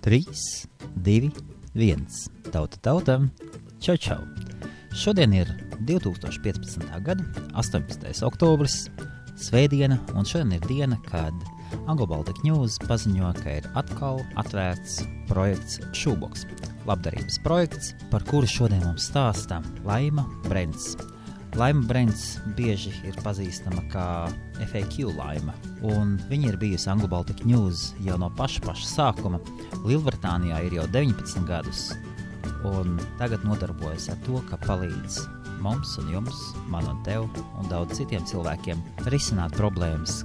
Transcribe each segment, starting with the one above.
3, 2, 1. Tauta tautam. Čau, čau. Šodien ir 2015. gada 18. oktobris, svētdiena, un šodien ir diena, kad Anglo Baltic News paziņo, ka ir atkal atvērts projekts Shoebox. Labdarības projekts, par kuru šodien mums stāsta Laima Brents. Laima Brents bieži ir pazīstama kā FAQ Laima, un viņa ir bijusi Anglo Baltic News jau no paša sākuma. Lielbritānijā ir jau 19 gadus, un tagad nodarbojas ar to, ka palīdz mums un jums, man un tev, un daudz citiem cilvēkiem risināt problēmas,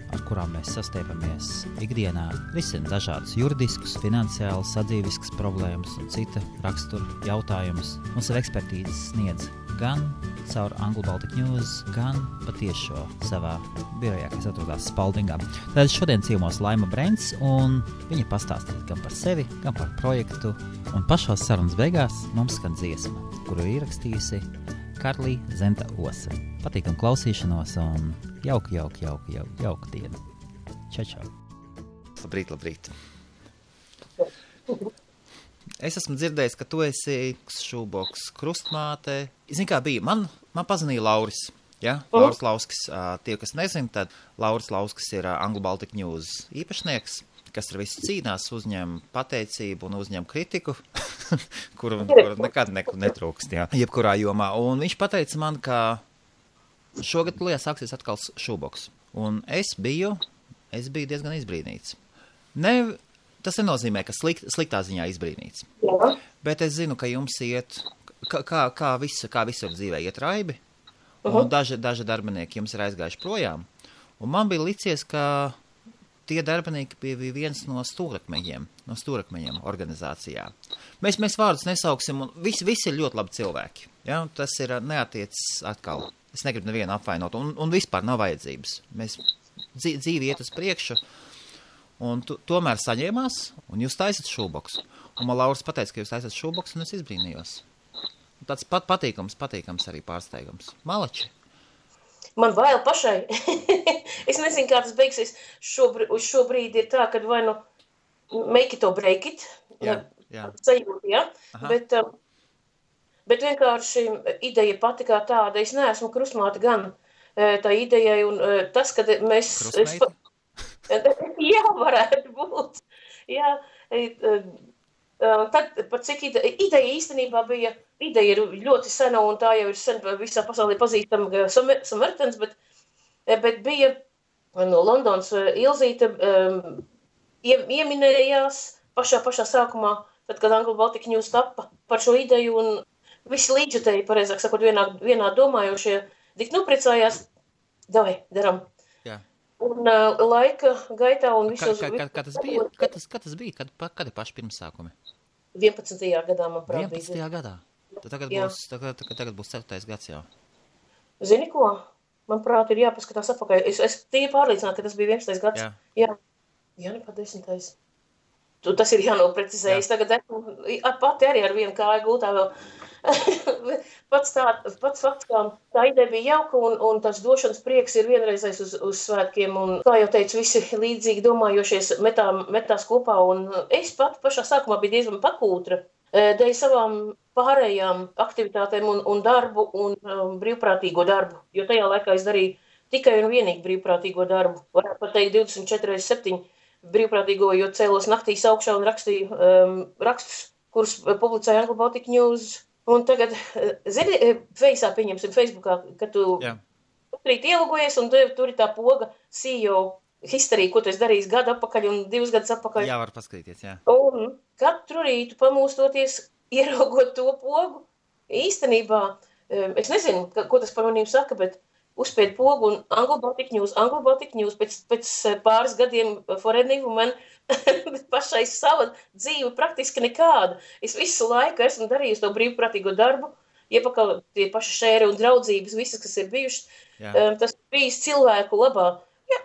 ar kurām mēs sastiepamies ikdienā, risina dažādus juridiskus, finansiālus, sadzīviskas problēmas un cita rakstura jautājumus. Mums ir ekspertīzes sniedz gan caur Anglo Baltic News, gan patiešo savā birojā, kas atrodās Spaldingā. Tad šodien ciemos Laima Brents, un viņa pastāstīs gan par sevi, gan par projektu, un pašās sarunas beigās mums skan dziesma, kuru ir ierakstījusi Karlija Zenta Ose. Patīkam klausīšanos un jauku dienu. Čau. Labrīt. Es esmu dzirdējis, ka tu esi Shoebox krustmāte. Zini, kā bija? Man pazvanīja Lauris. Ja? Lauris Lauskis. Tie, kas nezin, tad Lauris Lauskis ir Anglo Baltic News īpašnieks, kas ar visu cīnās, uzņem pateicību un uzņem kritiku, kuru nekad netrūkst, jā, jebkurā jomā. Un viņš pateica man, ka šogad sāksies atkal Shoebox. Un es biju diezgan izbrīnīts. Tas nenozīmē, ka sliktā ziņā izbrīnīts. Jā. Bet es zinu, ka jums iet, kā visur dzīvē iet raibi, un daži darbinieki jums ir aizgājuši projām. Un man bija licies, ka tie darbinieki bija viens no stūrakmeņiem organizācijā. Mēs vārdus nesauksim, un visi ir ļoti labi cilvēki. Ja? Tas ir neatiecis atkal. Es negribu nevienu apvainot, un vispār nav vajadzības. Mēs dzīvi iet uz priekšu, un tomēr saņēmās, un jūs taisat Shoebox. Un man Lauris pateica, ka jūs taisat Shoebox, un es izbrīnījos. Tāds patīkams arī pārsteigums. Malači. Man bail pašai. Es nezinu, kā tas beigsies. Šobrīd ir tā, ka vai nu make it or break it. Jā. Sajūta, ja? Bet vienkārši ideja pati kā tāda. Es neesmu krustmāte gan tā idejai, un tas, kad mēs... Krustmeita? Jā, varētu būt. Jā, tad par cik ideja īstenībā bija, ideja ir ļoti sena, un tā jau ir sen visā pasaulē pazīstama Samaritans, bet bija no Londonas Ilzīte ieminējās pašā sākumā, tad, kad Anglo Baltic News tappa par šo ideju, un visi līdzjutēji, pareizāk sakot, vienā domājošie, tik priecājās, davai, daram. Jā. Un laika gaitā un visos... Kā tas bija? Kad ir paši pirmsākumi? 11. gadā, manuprāt, 11. gadā? Tagad būs 4. gads jau. Zini ko? Manuprāt, ir jāpaskatās atpakaļ. Es tie pārliecinātu, ka tas bija 11. gads. Jā, nepār 10. Tas ir jānoprecizējas. Tagad pati arī ar vienu kāju gultā vēl. Pats fakts, kā tā ideja bija jauka, un tas došanas prieks ir vienreizais uz svētkiem, un, kā jau teicu, visi līdzīgi domājošies metās kopā, un es pat pašā sākumā biju diezgan pakūtra dēļ savām pārējām aktivitātēm un darbu un brīvprātīgo darbu, jo tajā laikā es darīju tikai un vienīgi brīvprātīgo darbu. Varētu pat teikt 24/7 brīvprātīgo, jo cēlos naktīs augšā un rakstīju rakstus, kurus publicēja Anglo Baltic News. Un tagad, zini, pieņemsim Facebookā, kad tu rīt ielogojies, un tur ir tā poga CEO histerija, ko tu esi darījis gadu atpakaļ un 2 gadus atpakaļ. Jā, var paskatīties, jā. Un katru rītu pamūstoties, ieraugot to pogu, īstenībā, es nezinu, ko tas par manīm saka, bet uzspēd pogu un Anglo Baltic News pēc pāris gadiem forever man pašai sava dzīve praktiski nekāda. Es visu laiku esmu darījusi to brīvprātīgo darbu, iepakaļ tie paši šēri un draudzības, visas, kas ir bijušas. Tas bijis cilvēku labā. Jā,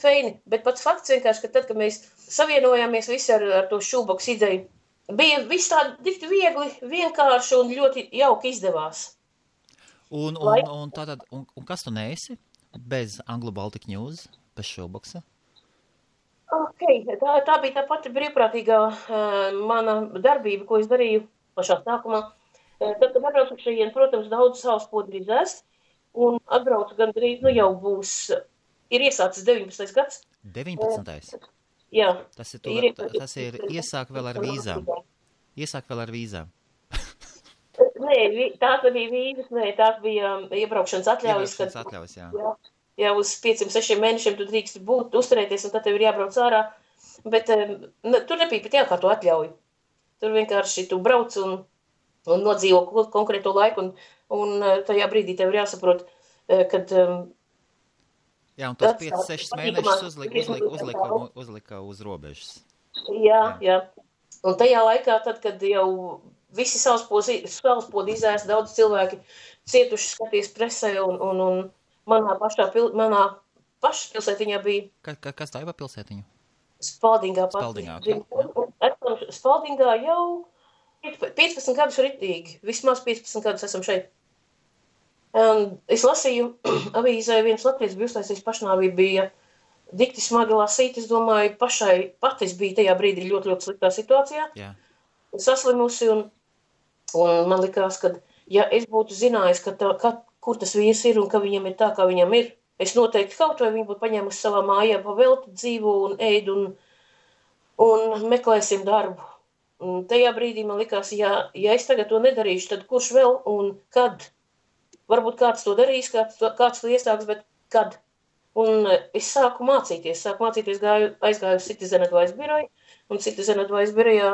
feini, bet pats fakts vienkārši, ka tad, kad mēs savienojāmies visi ar to Shoebox ideju, bija viss tā tik viegli, vienkārši un ļoti jauki izdevās. Un kas tu neesi bez Anglo Baltic News, bez Shoeboxa? Tā bija tā pati brīvprātīgā mana darbība, ko es darīju pašā sākumā. Tad, kad atbraucu šajien, protams, daudz savas podu izēst, un atbraucu gandrīz, jau būs, ir iesācis 19. gads. 19. Jā. Tas ir iesāk vēl ar vīzām. Nē, tās bija vīzas, tās bija iebraukšanas atļaujas. Jā, uz 5-6 mēnešiem tu drīkst būt, uzturēties, un tad tev ir jābrauc ārā. Bet tur nebija pat jākārto atļauju. Tur vienkārši tu brauc un nodzīvo konkrēto laiku, un tajā brīdī tev ir jāsaprot, kad... Jā, un tos 5-6 mēnešus uzlika uz robežas. Jā. Un tajā laikā, tad, kad jau visi salaspodi izēst, daudz cilvēki cietuši skaties presē, un manā pašas pilsētiņā bija... Kas tā ir pilsētiņa? Spaldingā. Spaldingā jau 15 gadus ritīgi. Vismaz 15 gadus esam šeit. Es lasīju avīzē, viens latviečs bija uztaisījis pašnāvību, bija dikti smagi lasīt. Es domāju, patis bija tajā brīdī ļoti, ļoti sliktā situācijā. Jā. Saslimusi, un man likās, ka, ja es būtu zinājis, kur tas vīrs ir un ka viņam ir tā, kā viņam ir, es noteikti kaut vai viņu būtu paņēmusi savā mājā, pavelti dzīvu un ēdu un meklēsim darbu. Un tajā brīdī man likās, ja es tagad to nedarīšu, tad kurš vēl un kad? Varbūt kāds to darīs, kāds to iesāks, bet kad? Un es sāku mācīties, aizgāju uz Citizen Advice biroju, un Citizen Advice birojā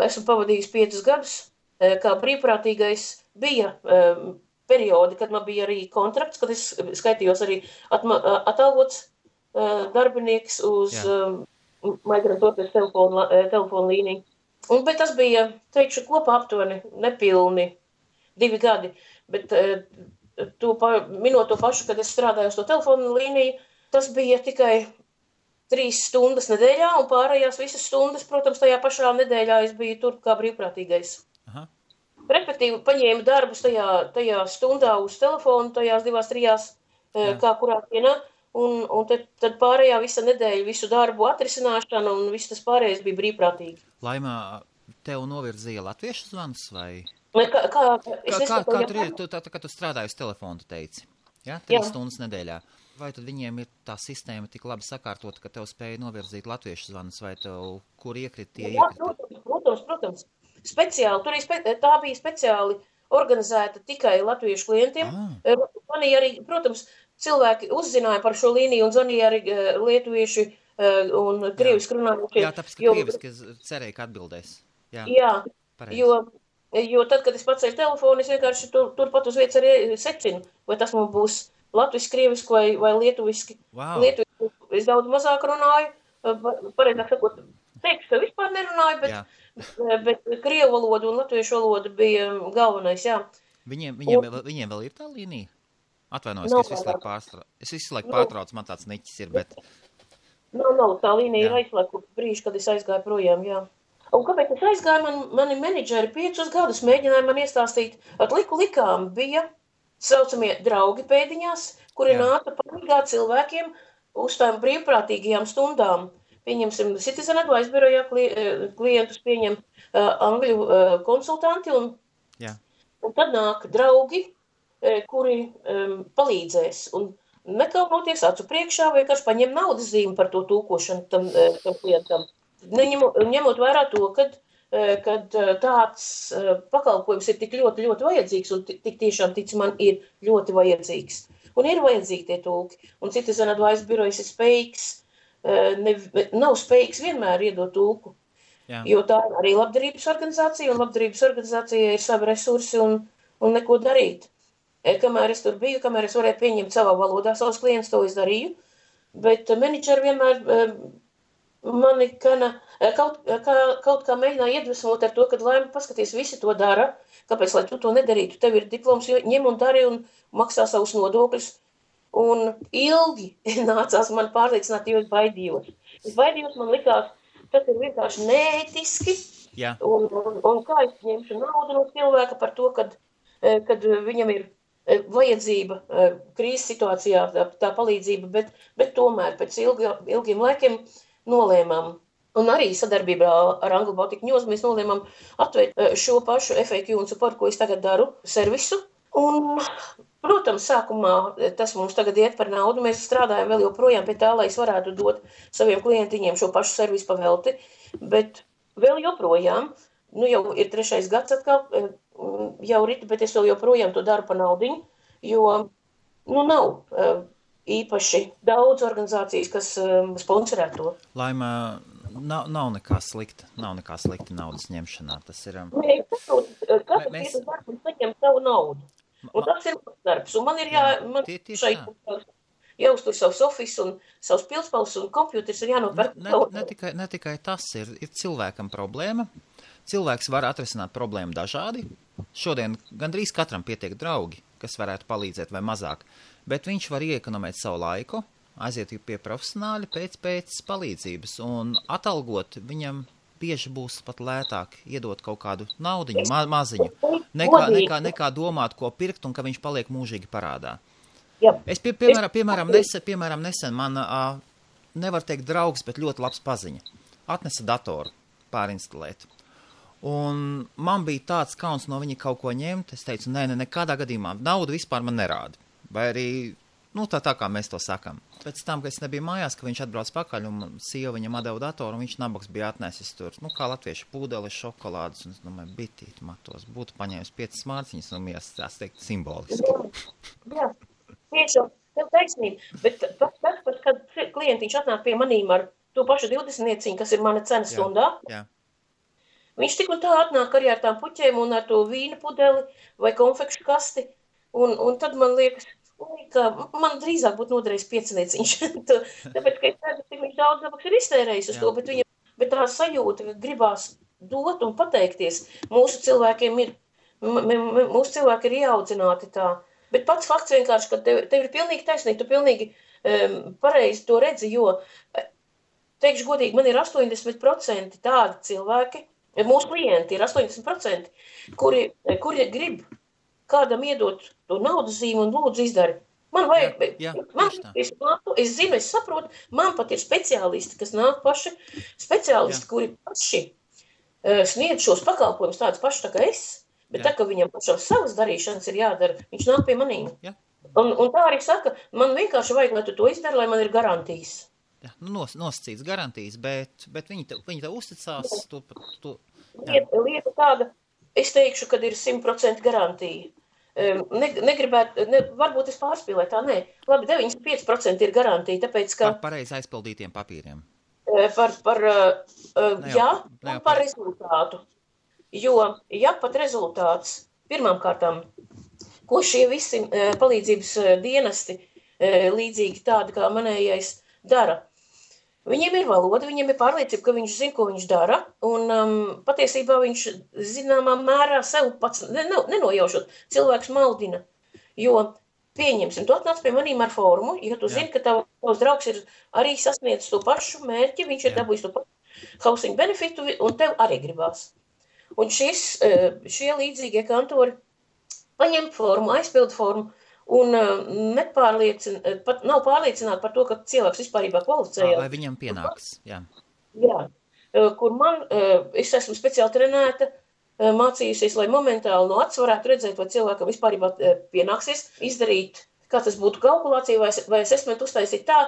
esmu pavadījis 5 gadus, kā brīvprātīgais bija periodi, kad man bija arī kontrakts, kad es skaitījos arī atalgots darbinieks uz migrantoties telefonu līniju. Bet tas bija, teikšu, kopā aptuveni nepilni 2 gadi, bet minot to pašu, kad es strādāju uz to telefonu līniju, tas bija tikai 3 stundas nedēļā, un pārējās visas stundas, protams, tajā pašā nedēļā es biju tur kā brīvprātīgais. Aha. Respektīvi, paņēmu darbus tajā stundā uz telefonu, tajās 2-3, kā kurā dienā, un tad pārējā visa nedēļa, visu darbu atrisināšana, un viss tas pārējais bija brīvprātīgi. Laimā, tev novirzīja latviešu zvans, vai? Kā tu strādāji uz telefonu, tu teici? Ja? 3 stundas nedēļā. Vai tad viņiem ir tā sistēma tik labi sakārtota, ka tev spēja novirzīt latviešu zvanus, vai tev, kur iekrita tie iekrita? Protams. Speciāli, tā bija speciāli organizēta tikai latviešu klientiem. Zvanīja arī, protams, cilvēki uzzināja par šo līniju un zvanīja arī lietuvieši un krieviski runājušie. Jā, tāpēc, ka krieviski cerēja, ka atbildēs. Jā, jo tad, kad es pacēju telefonu, es vienkārši turpat uz vietas arī secinu, vai tas man būs latviski, krieviski vai lietuviski. Wow. Lietuviski es daudz mazāk runāju, pareizāk sakot, teikšu, ka vispār nerunāju, bet krievu valoda un latviešu valoda bija galvenais, jā. Viņiem vēl ir tā līnija? Atvainojos, ka es visu laiku pārtraucu, man tāds niķis ir, bet... Nav, tā līnija ir aizslēgta brīži, kad es aizgāju projām, jā. Un kāpēc es aizgāju, mani menedžeri 5 gadus mēģināja man iestāstīt, likām bija saucamie draugi pēdiņās, kuri nāca palīgāt cilvēkiem uz tām brīvprātīgajām stundām. Pieņemsim, Citizen Advice birojā klientus pieņem angļu konsultanti, un tad nāk draugi, kuri palīdzēs. Un nekaunoties acu priekšā, vienkārši paņem naudas zīmi par to tūkošanu tam klientam. Ņemot vērā to, kad tāds pakalpojums ir tik ļoti, ļoti vajadzīgs, un tik tiešām tic man ir ļoti vajadzīgs. Un ir vajadzīgi tie tūki. Un Citizen Advice birojas ir spējīgs, nav spējīgs vienmēr iedot tūku. Jā. Jo tā ir arī labdarības organizācija, un labdarības organizācija ir savi resursi un neko darīt. Kamēr es tur biju, kamēr es varēju pieņemt savā valodā savus klientus, to es darīju, bet menedžeri vienmēr mani kaut kā mēģināja iedvesmot ar to, kad Laima paskaties, visi to dara, kāpēc, lai tu to nedarītu, tev ir diploms, ņem un dari un maksā savus nodokļus. Un ilgi nācās man pārliecināt, jo es baidījos. Man likās, tas ir vienkārši neētiski, un kā es ņemšu naudu no cilvēka par to, kad viņam ir vajadzība krīzes situācijā, tā palīdzība, bet tomēr pēc ilgiem laikiem nolēmām, un arī sadarbībā ar Anglo Baltic News, mēs nolēmām atvērt šo pašu FAQ un support, ko es tagad daru, servisu. Un, protams, sākumā tas mums tagad iet par naudu. Mēs strādājam vēl joprojām pie tā, lai es varētu dot saviem klientiņiem šo pašu servisu pavelti, bet vēl joprojām, jau ir 3. gads atkal, jau rita, bet es vēl joprojām to daru par naudiņu, jo, nav īpaši daudz organizācijas, kas sponsorē to. Laima, nav nekā slikta naudas ņemšanā. Tas ir... Nē, katrs ir darbs un saņem savu naudu. Un tas ir darbs. Un man ir šeit jāuztur savs office un savs pilspals un kompjuters ir jānopērk. Ne tikai tas ir cilvēkam problēma. Cilvēks var atrisināt problēmu dažādi. Šodien gandrīz katram pietiek draugi, kas varētu palīdzēt vai mazāk. Bet viņš var iekonomēt savu laiku, aiziet pie profesionāļa pēc palīdzības un atalgot viņam bieži būs pat lētāk iedot kaut kādu naudiņu, maziņu, nekā domāt, ko pirkt un ka viņš paliek mūžīgi parādā. Jā. Es, piemēram, nesen man, nevar teikt draugs, bet ļoti labs paziņa. Atnesa datoru pārinstalēt. Un man bija tāds kauns no viņa kaut ko ņemt. Es teicu, nekādā gadījumā naudu vispār man nerāda. Vai arī, tā kā mēs to sakam. Pēc tam, kad es nebiju mājās, ka viņš atbrauc pakaļ un sieva viņam atdeva datoru, un viņš nabaks bija atnesis tur, kā latvieši pūdeli, šokolādes, un es domāju, bitīt matos, būtu paņēmis 5 mārciņas, un tās teikt simboliski. Jā, tieši, tev taisnība, bet tas, kad klientiņš atnāk pie manīm ar to pašu 20 nieciņu, kas ir mana cena stundā, jā. Viņš tik un tā atnāk arī ar tām puķēm un ar to vīna pudeli vai konfekšu kasti, un tad man liekas, ka man drīzāk būtu noderējis 5 nieciņš. Tāpēc, ka es redzu, cik viņš daudz nabaks ir iztērējis uz to, bet tā sajūta, ka gribās dot un pateikties, mūsu cilvēki ir ieaudzināti tā. Bet pats fakts vienkārši, ka tev ir pilnīgi taisnīgi, tu pilnīgi pareizi to redzi, jo, teikšu godīgi, man ir 80% tādi cilvēki, mūsu klienti ir 80%, kuri grib kādam iedot to naudas zīmi un lūdzu izdari. Man vajag, es zinu, es saprotu, man pat ir speciālisti, kas nāk paši, speciālisti, kuri paši sniedz šos pakalpojumus tādus paši tā kā es, bet tā, ka viņam pašam savas darīšanas ir jādara, viņš nāk pie manīm. Un tā arī saka, man vienkārši vajag, lai tu to izdari, lai man ir garantijas. Jā, nosacīts garantijas, bet viņi te uzticās. Lieta tāda, es teikšu, kad ir 100% garantija. Varbūt es pārspīlēju, tā nē. Labi, 95% ir garantija, tāpēc, ka... Par pareizi aizpildītiem papīriem. Par rezultātu. Jo, ja pat rezultāts, pirmām kārtām, ko šie visi palīdzības dienesti, līdzīgi tādi kā manējais, dara, viņiem ir valoda, viņiem ir pārliecība, ka viņš zina, ko viņš dara, un patiesībā viņš zināmā mērā sev pats nenojaušot, cilvēks maldina, jo pieņemsim, tu atnāc pie manīm ar formu, ja tu zini, ka tavs draugs ir arī sasniedzis to pašu mērķi, viņš ir dabūjis to pašu housing benefitu, un tev arī gribās. Un šie līdzīgie kantori paņem formu, aizpild formu, un nav pārliecināti par to, ka cilvēks vispārībā kvalificējās. Vai viņam pienāks, jā. Jā, kur es esmu speciāli trenēta, mācījusies, lai momentāli no acis varētu redzēt, vai cilvēkam vispārībā pienāksies izdarīt, kā tas būtu kalkulācija, vai assessment uztaisīt tā,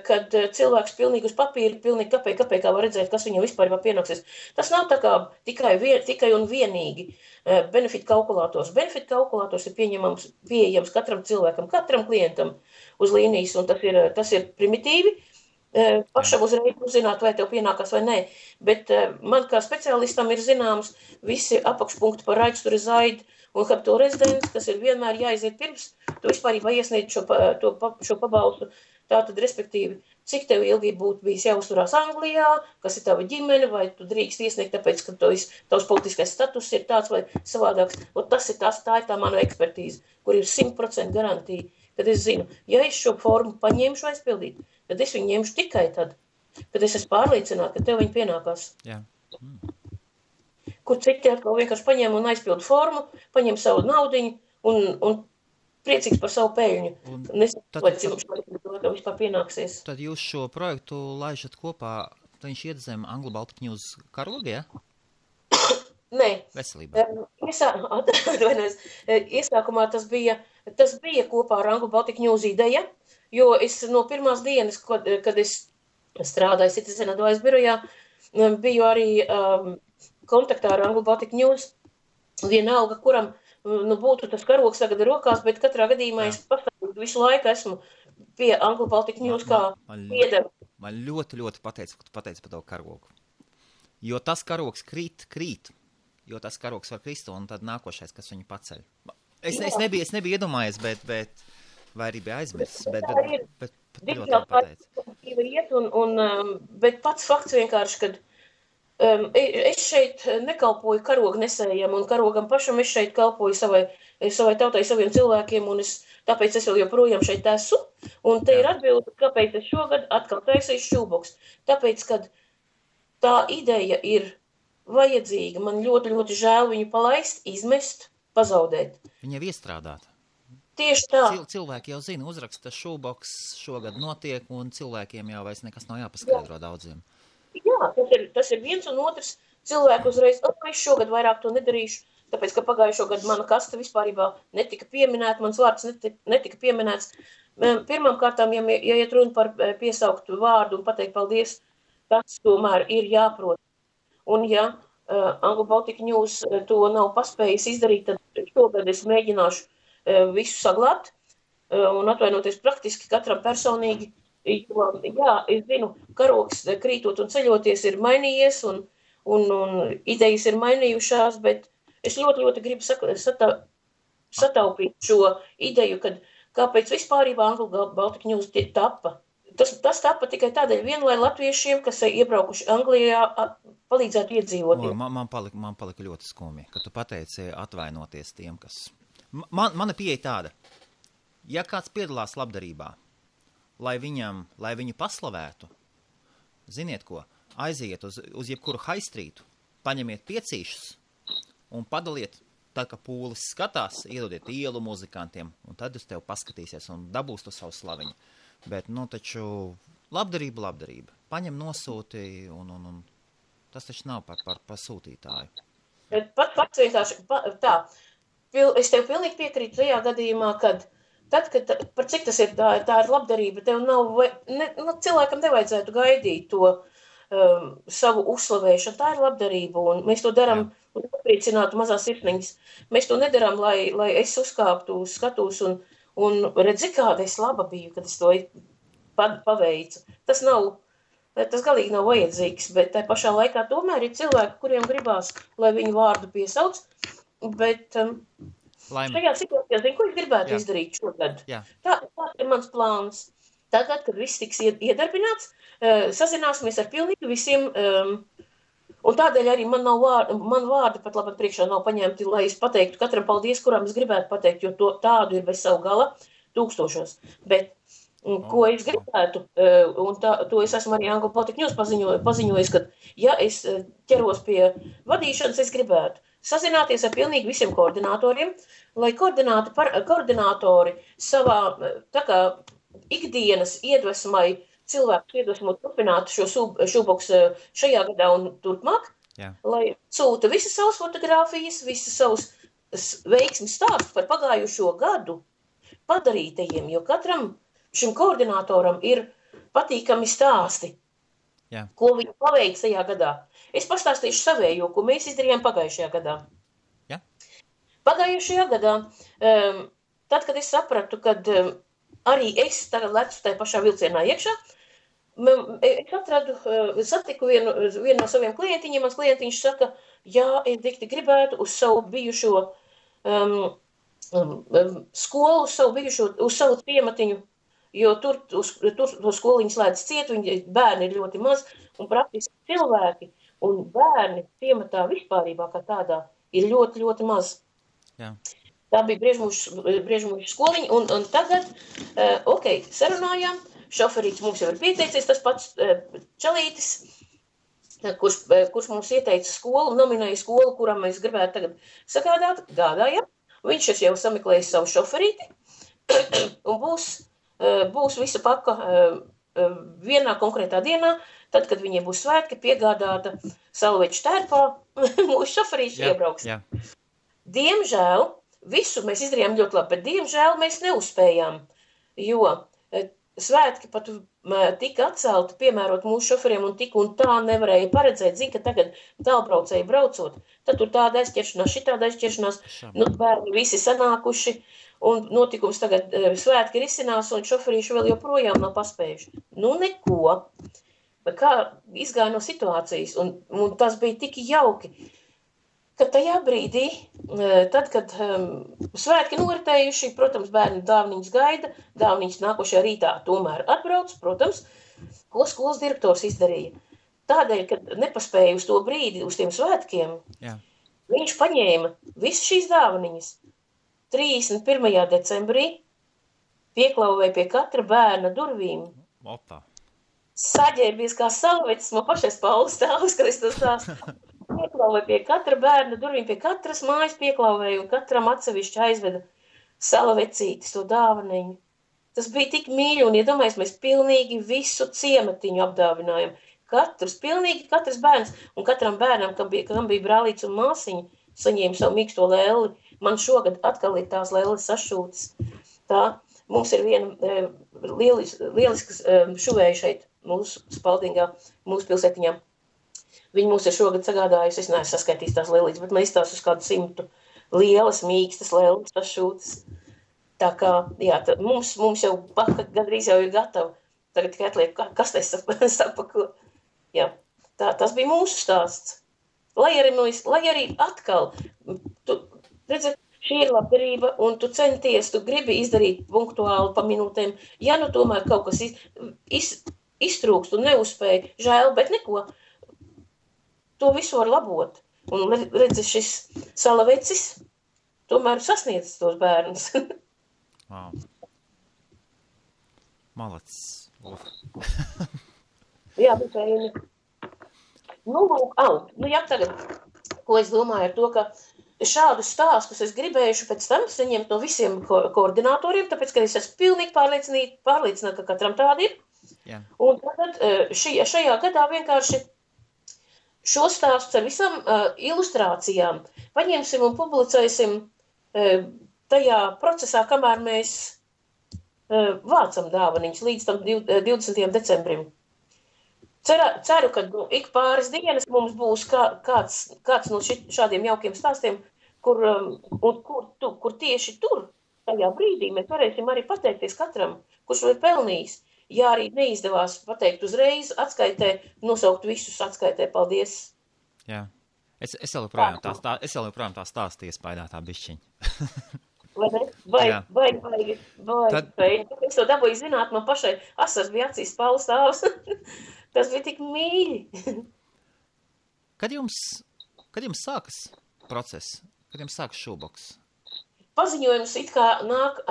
kad cilvēks pilnīgi uz papīra, pilnīgi kāpēc var redzēt, kas viņam vispārībā pienāksies. Tas nav tā kā tikai un vienīgi benefit kalkulators. Benefit kalkulators ir pieejams katram cilvēkam, katram klientam uz līnijas, un tas ir primitīvi. Pašam uzreiz uzzināt, vai tev pienākās vai nē. Bet man kā speciālistam ir zināms visi apakšpunkti par rights to reside un capital residence, kas ir vienmēr jāiziet pirms, tu vispārībā iesniedz šo pabalstu. Tātad, respektīvi, cik tev ilgi būtu bijis jāuzturās Anglijā, kas ir tava ģimene, vai tu drīkst iesniegt, tāpēc, ka tavs politiskais status ir tāds vai savādāks. Tā ir tā mana ekspertīze, kur ir 100% garantija, kad es zinu, ja es šo formu paņemšu aizpildīt, tad es viņu ņemšu tikai tad, kad es esmu pārliecināta, ka tev viņa pienākās. Jā. Kur citi atkal vienkārši paņem un aizpildu formu, paņem savu naudiņu un priecīgs par savu peļņu. Nezinu, vai cim vispār pienāksies. Tad jūs šo projektu laižat kopā, viņš iet zem Anglo Baltic News karoga, ja? Nē. Veselībā. Iesākumā tas bija kopā ar Anglo Baltic News ideja, jo es no pirmās dienas, kad es strādāju Citizen Advice birojā, biju arī kontaktā ar Anglo Baltic News, vienalga, kuram būtu tas karogs tagad rokās, bet katrā gadījumā es pastāvīgi visu laiku esmu pie Anglo Baltic News kā piedevu. Man ļoti pateica, ka tu pateici par to karogu. Jo tas karogs krīt, jo tas karogs var krist, un tad nākošais, kas viņu paceļ. Es nebiju iedomājies, bet vai arī bija aizmirsts, bet ļoti pateica. Bet pats fakts vienkārši, kad es šeit nekalpoju karognesējiem un karogam pašam, es šeit kalpoju savai tautai, saviem cilvēkiem, un tāpēc es vēl joprojām šeit esmu. Un te ir atbilde, kāpēc es šogad atkal taisīju šūboks. Tāpēc, kad tā ideja ir vajadzīga, man ļoti žēl viņu palaist, izmest, pazaudēt. Viņa ir iestrādāta. Tieši tā. Cilvēki jau zina, uzraksta šūboks šogad notiek, un cilvēkiem jau vairs nekas nav jāpaskaidro daudziem. Jā, tas ir viens un otrs cilvēku uzreiz, es šogad vairāk to nedarīšu, tāpēc, ka pagājušo gadu mana kasta vispārībā netika pieminēta, mans vārds netika pieminēts. Pirmām kārtām, ja iet runa par piesaukt vārdu un pateikt paldies, tas tomēr ir jāprot. Un ja Anglo Baltic News to nav paspējis izdarīt, tad šogad es mēģināšu visu saglabāt un atvainoties praktiski katram personīgi. Jo, jā, es zinu, karogs krītot un ceļoties ir mainījies un idejas ir mainījušās, bet es ļoti gribu sataupīt šo ideju, kad kāpēc vispārībā Anglo Baltic News tappa. Tas tappa tikai tādēļ lai latviešiem, kas iebraukuši Anglijā, palīdzētu iedzīvot. Man palika ļoti skumji, ka tu pateici atvainoties tiem, kas... Mana pieeja tāda, ja kāds piedalās labdarībā, lai viņu paslavētu, ziniet ko, aiziet uz jebkuru haistrītu, paņemiet piecīšus un padaliet, tad, ka pūlis skatās, iedodiet ielu muzikantiem, un tad uz tevi paskatīsies un dabūs to savu slaviņu. Bet, taču labdarība. Paņem nosūti, un tas taču nav par sūtītāju. Pats vienkārši tā. Es tev pilnīgi piekrītu tajā gadījumā, kad par cik tas ir, tā ir labdarība, tev cilvēkam nevajadzētu gaidīt to savu uzslavēšanu, tā ir labdarība, un mēs to darām, lai apriecinātu mazās sirsniņas. Mēs to nedarām, lai es uzkāptu uz skatus un redzi, kāda es laba biju, kad es to paveicu. Tas galīgi nav vajadzīgs, bet tā pašā laikā tomēr ir cilvēki, kuriem gribās, lai viņu vārdu piesauc, bet šajā situācijā, ko es gribētu izdarīt šogad. Tā ir mans plāns. Tagad, kad viss tiks iedarbināts, sazināsimies ar pilnīgi visiem, un tādēļ arī man vārdi pat labāk priekšā nav paņemti, lai es pateiktu katram paldies, kuram es gribētu pateikt, jo tādu ir bez savu gala tūkstošos. Bet, ko es gribētu, un to es esmu arī Anglo Baltic News paziņojis, ka, ja es ķeros pie vadīšanas, es gribētu sazināties ar pilnīgi visiem koordinatoriem, lai koordinatori savā tā kā ikdienas iedvesmai cilvēkus iedvesmot turpināt šo šūboksu šajā gadā un turpmāk, lai sūta visas savas fotogrāfijas, visas savus veiksmes stāstus par pagājušo gadu padarītajiem, jo katram šim koordinatoram ir patīkami stāsti, ko viņi paveic tajā gadā. Es pastāstīšu savējo, ko mēs izdarījām pagājušajā gadā. Pagājušajā gadā, tad, kad es sapratu, kad arī es tagad lecu tajā pašā vilcienā iekšā, es satiku vienu no saviem klientiņiem, mans klientiņš saka, jā, es dikti gribētu uz savu bijušo skolu, uz savu ciematiņu, jo tur to skoliņu slēdz ciet, bērni ir ļoti maz, un praktiski cilvēki un bērni ciematā vispārībā kā tādā ir ļoti maz. Jā. Tā bija Briežmužu skoliņa, un tagad, sarunājām, šoferīts mums jau ir pieteicies, tas pats Čalītis, kurš mums ieteica skolu, nominēja skolu, kuram mēs gribētu tagad sagādāt, gādājam. Viņš jau sameklēja savu šoferīti, un būs visa paka vienā konkrētā dienā, tad, kad viņiem būs svētki, piegādāta salveču tērpā, mūsu šoferīši iebrauks. Jā. Diemžēl, visu mēs izdarījām ļoti labi, bet diemžēl mēs neuzspējām, jo svētki pat tika atcelti, piemērot mūsu šoferiem un tik un tā nevarēja paredzēt. Zin, ka tagad tālbraucēji braucot, tad tur tāda aizķeršanās, šitāda aizķeršanās, bērni visi sanākuši, un notikums tagad svētki risinās, un šoferīši vēl joprojām nav paspējuši. Neko. Kā izgāja no situācijas, un tas bija tik jauki, ka tajā brīdī, tad, kad svētki noritējuši, protams, bērni dāvniņas gaida, dāvniņas nākošajā rītā tomēr atbrauc, protams, ko skolas direktors izdarīja. Tādēļ, kad nepaspēja uz to brīdi, uz tiem svētkiem, viņš paņēma visas šīs dāvniņas 31. decembrī, pieklauvēja pie katra bērna durvīm. Opa. Saģērbies kā salvecis, man pašais Paulis stāvs, kad es to stāstu. Pieklauvēja pie katra bērna durvīm, pie katras mājas pieklauvēja un katram atsevišķi aizveda salvecītis, to dāvaniņu. Tas bija tik mīļi un, iedomājies, mēs pilnīgi visu ciematiņu apdāvinājam. Pilnīgi katrs bērns un katram bērnam, kam bija brālīts un māsiņa, saņēma savu mīksto lēli. Man šogad atkal ir tās lēles sašūtas. Tā, mums ir viena lieliskas šuvēja šeit mūsu Spaldingā, mūsu pilsētiņā. Viņi mums ir šogad sagādājusi, es neesmu saskaitījis tās lēlītes, bet mēs tās uz kādu 100 lielas, mīkstas lēles sašūtas. Tā kā, jā, mums jau paka gandrīz jau ir gatava. Tagad tikai atliek, kas te sapako. Jā, tas bija mūsu stāsts. Lai arī atkal, tu redzi, šī ir labdarība, un tu centies, tu gribi izdarīt punktuāli pa minūtēm. Ja nu tomēr kaut kas iztrūkst un neuzspēja, žēl, bet neko. To visu var labot. Un redzi, šis salavecis tomēr sasniedz tos bērnus. Wow. Malacis. Jā, bet jā, tagad, ko es domāju ar to, ka šādus stāstus es gribējuši pēc tam saņemt no visiem koordinatoriem, tāpēc, ka es esmu pilnīgi pārliecināta, ka katram tādi ir. Jā. Un tad šajā gadā vienkārši šo stāstu ar visam ilustrācijām paņemsim un publicēsim tajā procesā, kamēr mēs vācam dāvaniņus līdz tam 20. decembrim. Ceru, ka ik pāris dienas mums būs kāds no šādiem jaukiem stāstiem, kur tieši tur, tajā brīdī, mēs varēsim arī pateikties katram, kurš to ir pelnījis. Ja arī neizdevās pateikt uzreiz, atskaitē, nosaukt visus atskaitē, paldies. Jā, es vēl joprojām tā stāstu iespaidā tā bišķiņa. Vai, es to dabūju zināt, man pašai asars bija acīs Pauls stāvs. Tas bija tik mīļi. Kad jums sākas process? Kad jums sākas šūboks? Paziņojums it kā nāk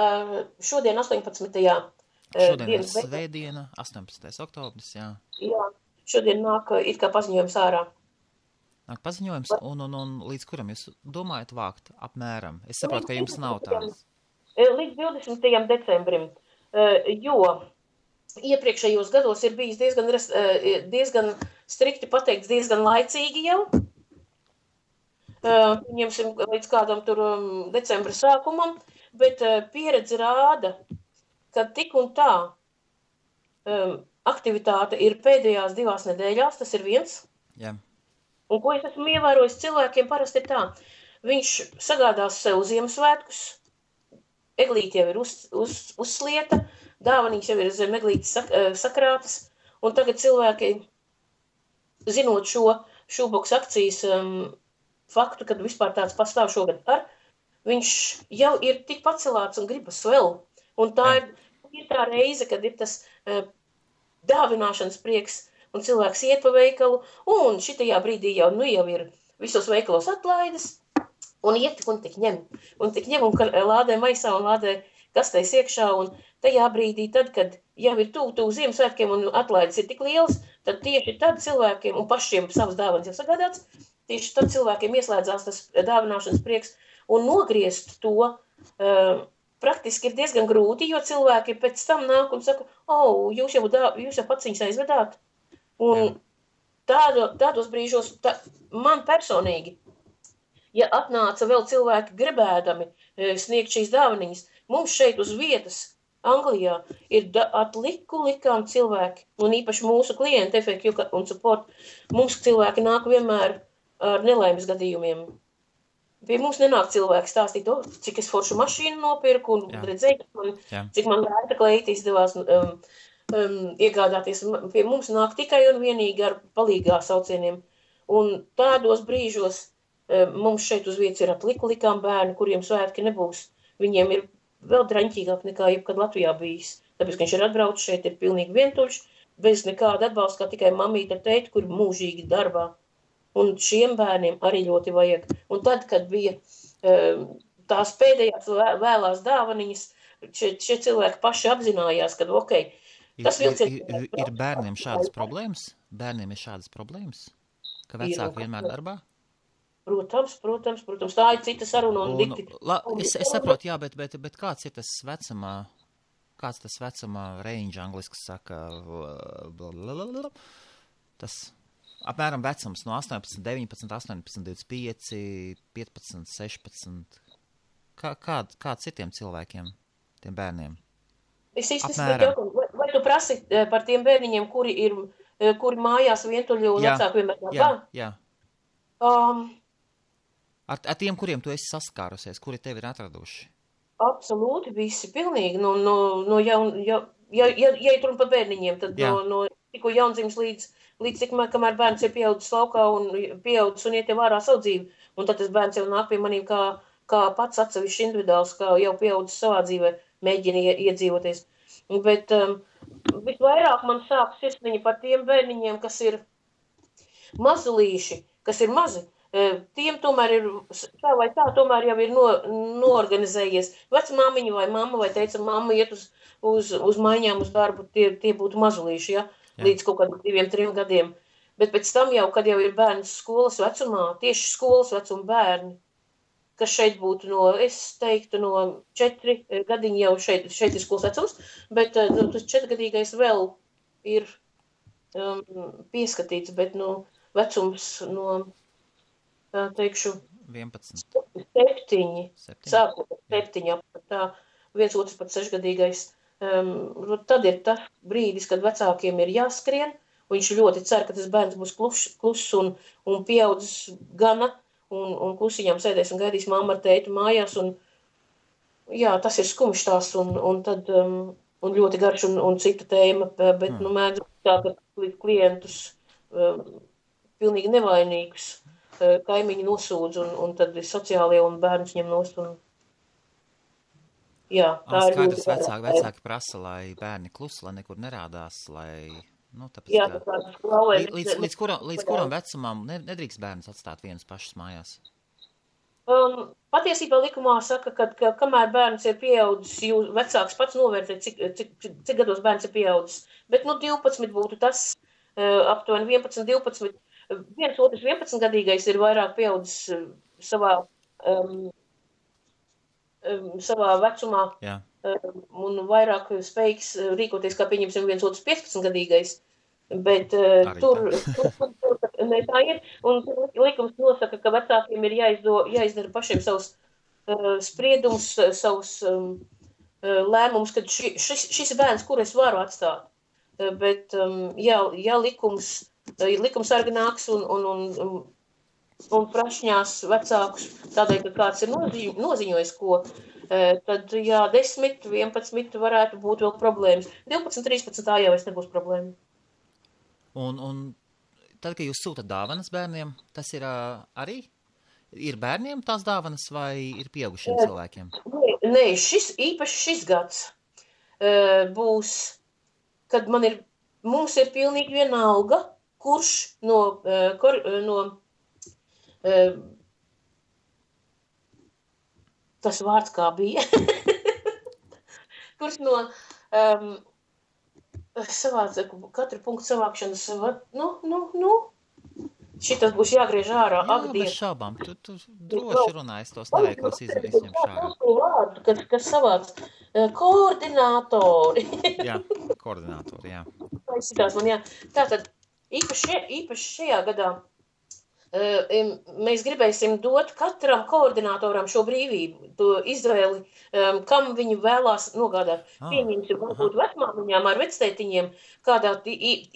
šodien 18. Šodien ir svētdiena, 18. oktobris, jā. Jā, šodien nāk it kā paziņojums ārā. Nāk paziņojums, un līdz kuram jūs domājat vākt apmēram? Es saprotu, ka jums nav tādas. Līdz 20. decembrim, jo iepriekšējos gados ir bijis diezgan strikti pateikts, diezgan laicīgi jau. Ņemsim līdz kādam tur decembra sākumam, bet pieredze rāda, ka tik un tā aktivitāte ir pēdējās 2 nedēļās, tas ir viens. Jā. Un ko es esmu ievērojis, cilvēkiem parasti ir tā. Viņš sagādās sev Ziemassvētkus, eglīte jau ir uzslieta, dāvanīgs jau ir zem eglītes sakrātas, un tagad cilvēki, zinot šo šūboks akcijas faktu, kad vispār tāds pastāv šogad viņš jau ir tik pacelāts un gribas vēl. Un tā ir tā reize, kad ir tas dāvināšanas prieks, un cilvēks iet pa veikalu, un šitajā brīdī jau ir visos veikalos atlaides, un iet un tik ņem, un lādē maisā un lādē kastēs iekšā, un tajā brīdī tad, kad jau ir tuvu Ziemassvētkiem un atlaides ir tik lielas, tad tieši tad cilvēkiem, un pašiem savas dāvanas jau sagādāts, tieši tad cilvēkiem ieslēdzās tas dāvināšanas prieks, un nogriezt to praktiski ir diezgan grūti, jo cilvēki pēc tam nāk un saka, jūs jau pats viņus aizvedāt. Un tādos brīžos, man personīgi, ja atnāca vēl cilvēki gribēdami sniegt šīs dāvaniņas, mums šeit uz vietas, Anglijā, ir likām cilvēki, un īpaši mūsu klienti, FAQ un support, mums cilvēki nāk vienmēr ar nelaimes gadījumiem. Pie mums nenāk cilvēki stāstīt, cik es foršu mašīnu nopirku un redzēju, cik man vērta kleita izdevās iegādāties. Pie mums nāk tikai un vienīgi ar palīgā saucieniem. Un tādos brīžos mums šeit uz vietas ir likām bērni, kuriem svētki nebūs. Viņiem ir vēl draņķīgāk nekā jebkad Latvijā bijis. Tāpēc, ka viņš ir atbraucis šeit, ir pilnīgi vientuļš, bez nekāda atbalsta, kā tikai mamīte ar tēti, kur mūžīgi darbā. Un šiem bērniem arī ļoti vajag. Un tad, kad bija tās pēdējās vēlās dāvaniņas, šie cilvēki paši apzinājās, ka, tas ir bērniem šādas problēmas? Bērniem ir šādas problēmas? Ka vecāki vienmēr darbā? Protams. Tā ir cita saruna un dikti. Es saprotu, jā, bet kāds ir tas vecuma range, angliski saka, tas... Apmēram vecums no 18, 19, 18, 25, 15, 16. Kāds ir tiem cilvēkiem, tiem bērniem? Es īstenībā jautāju, vai tu prasi par tiem bērniņiem, kuri mājās vientuļi un vecāki vienmēr darbā? Jā. Ar tiem, kuriem tu esi saskārusies, kuri tevi ir atraduši? Absolūti, visi pilnīgi. Ja ir runa par bērniņiem, tad no tikko jaundzimis līdz kamēr bērns ir pieaudzis laukā un pieaudzis un iet jau ārā savu dzīvi. Un tad tas bērns jau nāk pie manīm kā pats atsevišķi individuāls, kā jau pieaudzis savā dzīvē, mēģina iedzīvoties. Bet visvairāk man sāk sirsniņa par tiem bērniņiem, kas ir mazulīši, kas ir mazi. Tiem tomēr ir, tā vai tā, tomēr jau ir noorganizējies. Vecmāmiņa vai mamma vai teica, mamma iet uz maiņām uz darbu, tie būtu mazulīši, ja? Līdz kaut kādiem 2-3 gadiem. Bet pēc tam jau, kad jau ir bērns skolas vecumā, tieši skolas vecuma bērni, kas šeit būtu es teiktu, no 4 gadiņi jau šeit ir skolas vecums, bet tas 4-gadīgais vēl ir pieskatīts, bet vecums no, teikšu, 11. 7. Sākot 7, tā 1 otrs pat 6-gadīgais. Tad ir tas brīdis, kad vecākiem ir jāskrien, un viņš ļoti cer, ka tas bērns būs kluss un pieaudzis gana, un klusiņām sēdēs un gaidīs mamma ar tēti mājās, un jā, tas ir skumjš tās, un tad, un ļoti garš un cita tēma, bet, mēdz tā, ka klientus pilnīgi nevainīgus kaimiņi nosūdz, un tad sociālie un bērns ņem nost, un jā, tā ir ļoti vecāki prasa, lai bērni klusi, lai nekur nerādās, lai, tāpēc, jā, līdz kuram vecumam nedrīkst bērns atstāt vienus pašus mājās? Patiesībā likumā saka, ka kamēr bērns ir pieaudzis, jūs vecāks pats novērtē, cik gados bērns ir pieaudzis. Bet, 12 būtu tas, aptuveni 11, 12, 1 otrs 11-gadīgais ir vairāk pieaudzis savā vecumā, un vairāk spējīgs rīkoties, kā pieņemsim 1 otrs 15-gadīgais, bet tur ne tā ir, un likums nosaka, ka vecākiem ir jāizdara pašiem savus spriedumus, savus lēmumus, kad šis bērns, kur es varu atstāt, bet ja likumsargi nāks un prašņās vecākus tādēļ, ka kāds ir noziņojis ko, tad 10, 11 varētu būt vēl problēmas. 12, 13 tā jau nebūs problēma. Un tad, kad jūs sūtat dāvanas bērniem, tas ir arī? Ir bērniem tās dāvanas vai ir pieaugušiem cilvēkiem? Nē, īpaši šis gads būs, kad mums ir pilnīgi vienalga, kurš tas vārds kā bija, kurš no katru punktu savākšanas, šitas būs jāgriež ārā. Jā, bez šaubām. Tu droši runā, es tos neveikos izņemšu ārā. Kas savāds? Koordinātori. Jā, koordinātori, jā. Tātad, īpaši šajā gadā mēs gribēsim dot katram koordinātoram šo brīvību, to izvēli, kam viņi vēlās nogādāt. Pieņemsim, varbūt vecmāmiņām ar vectētiņiem,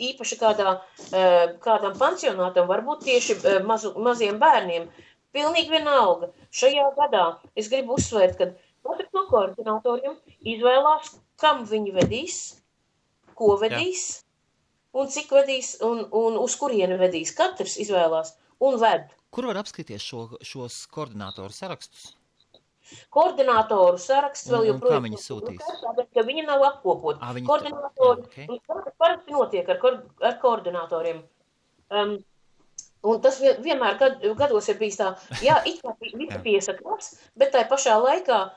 īpaši kādam pansionātam, varbūt tieši maziem bērniem. Pilnīgi vienalga. Šajā gadā es gribu uzsvērt, ka katrs no koordinātoriem izvēlās, kam viņi vedīs, ko vedīs, un cik vedīs, un uz kurieni vedīs. Katrs izvēlās. Un ved. Kur var apskatīties šos koordinātoru sarakstus? Koordinātoru saraksts vēl joprojām. Un kā viņi sūtīs? Tāpēc, ka viņi nav apkopot. Koordinātori, parasti notiek ar koordinātoriem. Un tas vienmēr gados ir bijis tā, it kā visi piesakās, bet tai pašā laikā,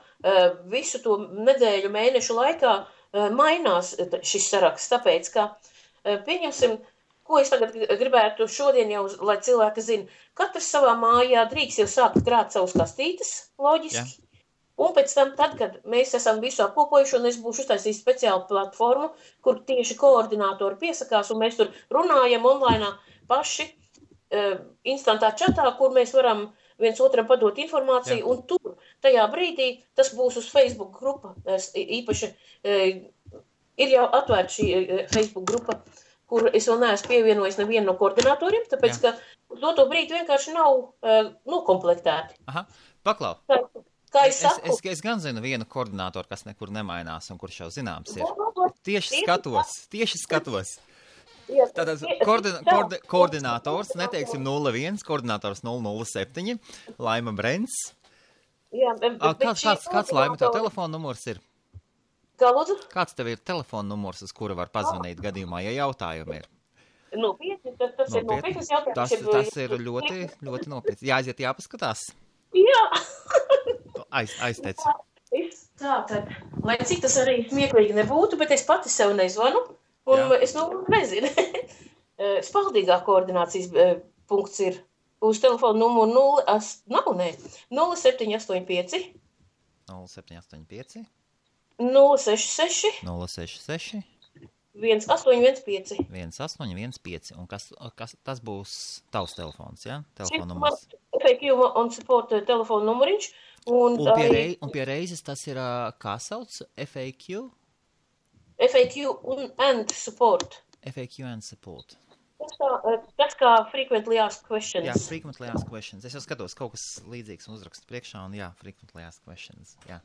visu to nedēļu, mēnešu laikā mainās šis saraksts. Tāpēc, ka, pieņemsim, ko es tagad gribētu šodien jau, lai cilvēki zina, katrs savā mājā drīkst jau sākt krāt savus kastītes, loģiski. Un pēc tam, tad, kad mēs esam visu apkopojuši, un es būšu uztaisījis speciālu platformu, kur tieši koordinātori piesakās, un mēs tur runājam online paši, instantā čatā, kur mēs varam viens otram padot informāciju, un tur, tajā brīdī, tas būs uz Facebook grupa. Īpaši ir jau atvērta šī Facebook grupa, kur es vēl neesmu pievienojis nevienu no koordinatoriem, tāpēc, ka uz to brīdi vienkārši nav nokomplektēti. Aha, paklau. Kā es saku? Es gan zinu vienu koordinatoru, kas nekur nemainās un kurš jau zināms ir. Tieši skatos. Tātad koordinators, neteiksim 01, koordinators 007, Laima Brents. Jā, kāds Laima tev telefona numurs ir? Kā lūdzu? Kāds tev ir telefona numurs, uz kura var pazvanīt gadījumā, ja jautājumi ir? Nopietni, tas ir nopietnas jautājums. Tas ir ļoti, ļoti nopietni. Jāaiziet, jāpaskatās. Jā. Aizteic. Tātad, lai cik tas arī smieklīgi nebūtu, bet es pati sev nezvanu, un es nezinu. Spaldīgā koordinācijas punkts ir uz telefonu numuru 0785 0785 066 1815. 1815. Un kas tas būs tavs telefons, ja? Telefona numurs. FAQ un support telefona numuriņš. Un pie reizes tas ir, kā sauc? FAQ? FAQ and support. FAQ and support. Tas kā frequently asked questions. Jā, frequently asked questions. Es jau skatos kaut kas līdzīgs un uzrakstu priekšā, un frequently asked questions, jā.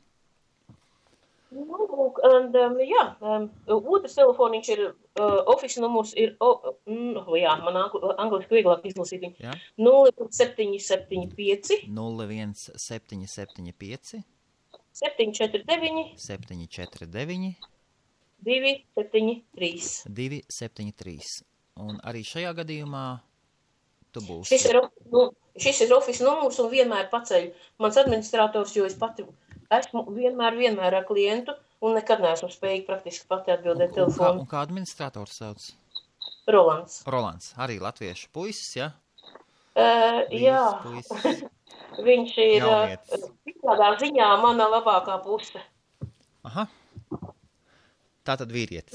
Otrs telefoniņš ir, office numurs ir, man angliski vieglāk izlasīt viņu, 0775 01775 749 749 273. 273. Un arī šajā gadījumā tu būsi. Šis ir office numurs un vienmēr paceļ mans administrators, jo es pati esmu vienmēr ar klientu un nekad neesmu spējīgi praktiski pati atbildēt telefonu. Un kā administrators sauc? Rolands. Rolands, arī latviešu puisis, ja? Jā. Puisis. Viņš ir tādā ziņā mana labākā puse. Aha. Tātad vīrietis.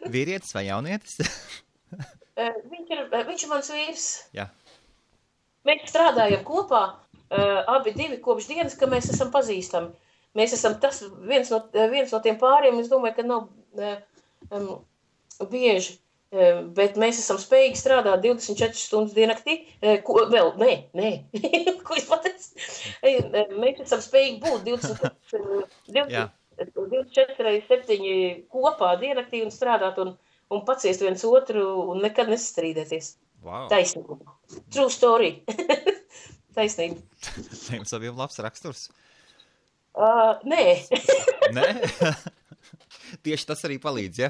Vīrietis vai jaunietis? Viņš ir mans vīrs. Jā. Mēs strādājam kopā. Abi divi kopš dienas, ka mēs esam pazīstami. Mēs esam viens no tiem pāriem, es domāju, ka nav bieži, bet mēs esam spējīgi strādāt 24 stundas diennaktī. Ko es pateicu? Mēs esam spējīgi būt 24/7 kopā diennaktī un strādāt un paciest viens otru un nekad nesastrīdēties. Wow. Taisnība. True story. Taisnība. Jums abiem labs raksturs? Nē. Nē? Tieši tas arī palīdz, ja?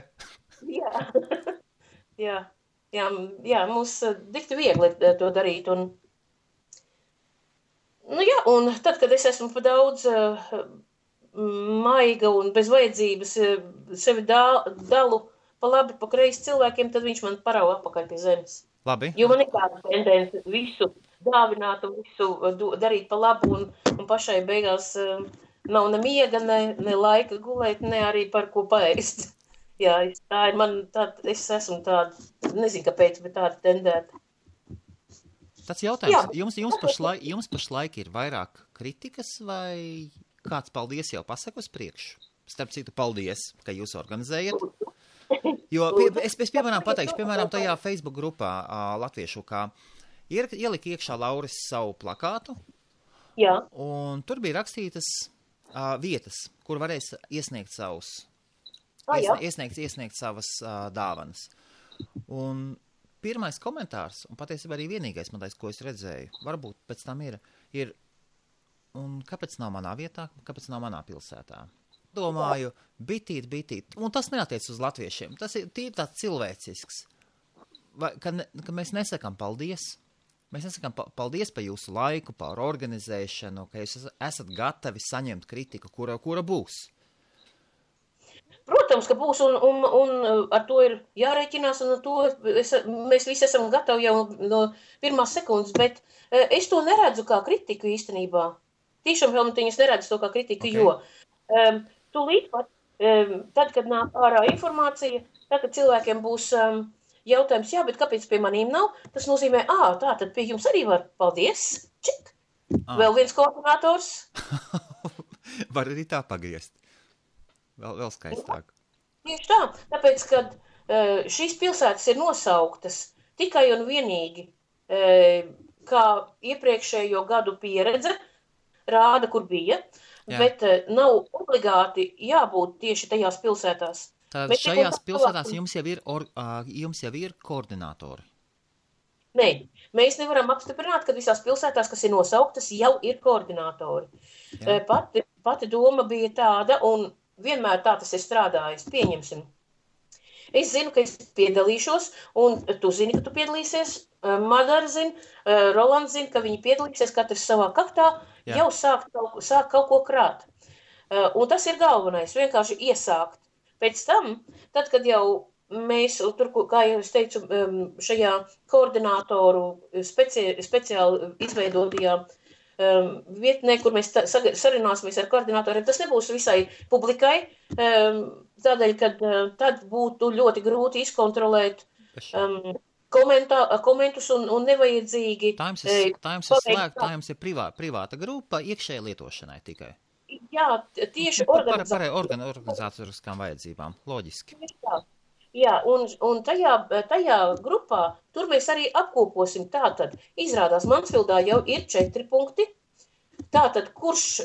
Jā, mums dikti viegli to darīt. Un tad, kad es esmu pa daudz maiga un bez vajadzības sevi dalu pa labi, pa kreisi cilvēkiem, tad viņš man parauga apakaļ pie zemes. Labi. Jo man ir tāda tendence visu dāvināt un visu darīt pa labu un pašai beigās nav ne miega, ne laika gulēt, ne arī par ko paēst. Jā, tā ir man tāda, es esmu tāda, nezinu kāpēc, bet tāda tendēta. Tāds jautājums, jums pašlaik ir vairāk kritikas vai kāds paldies jau pasaka uz priekšu? Starp citu, paldies, ka jūs organizējat. Jo es piemēram pateikšu, tajā Facebook grupā latviešu, kā ielika iekšā Lauris savu plakātu. Jā. Un tur bija rakstītas vietas, kur varēs iesniegt iesniegt savas dāvanas. Un pirmais komentārs, un patiesībā arī vienīgais, ko es redzēju, varbūt pēc tam ir, un kāpēc nav manā vietā, kāpēc nav manā pilsētā? Domāju, bitīt, un tas neatiec uz latviešiem, tas ir tīri tāds cilvēcisks, ka mēs nesakām paldies. Mēs nesakām paldies par jūsu laiku, par organizēšanu, ka jūs esat gatavi saņemt kritiku, kura būs. Protams, ka būs, un ar to ir jārēķinās, un ar to mēs visi esam gatavi jau no pirmās sekundes, bet es to neredzu kā kritiku īstenībā. Tiešām es neredzu to kā kritiku, jo tūlīt pat, tad, kad nāk ārā informācija, tad, kad cilvēkiem būs jautājums, jā, bet kāpēc pie manīm nav? Tas nozīmē, tā, tad pie jums arī var, paldies, čik, vēl viens koordinators. Var arī tā pagriezt. Vēl skaistāk. Tieši tā, tāpēc, kad šīs pilsētas ir nosauktas tikai un vienīgi, kā iepriekšējo gadu pieredze rāda, kur bija, bet nav obligāti jābūt tieši tajās pilsētās. Tad šajās pilsētās jums jau ir koordinātori? Nē, mēs nevaram apstiprināt, ka visās pilsētās, kas ir nosauktas, jau ir koordinātori. Pati doma bija tāda, un vienmēr tā tas ir strādājis, pieņemsim. Es zinu, ka es piedalīšos, un tu zini, ka tu piedalīsies, Madara zina, Rolands zina, ka viņi piedalīsies, katrs savā kaktā, jau sāk kaut ko krāt. Un tas ir galvenais, vienkārši iesākt. Pēc tam, tad, kad jau mēs, tur, kā jau es teicu, šajā koordinātoru speciāli izveidotajā vietnē, kur mēs sarunāsimies ar koordinātoriem, tas nebūs visai publikai, tādēļ, ka tad būtu ļoti grūti izkontrolēt komentus un nevajadzīgi. Tā jums ir slēgta, tā jums ir privāta grupa iekšēji lietošanai tikai. Jā, tieši organizatoriskām vajadzībām, loģiski. Jā, un tajā grupā, tur mēs arī apkoposim tātad, izrādās Mansfildā jau ir 4 punkti, tātad, kurš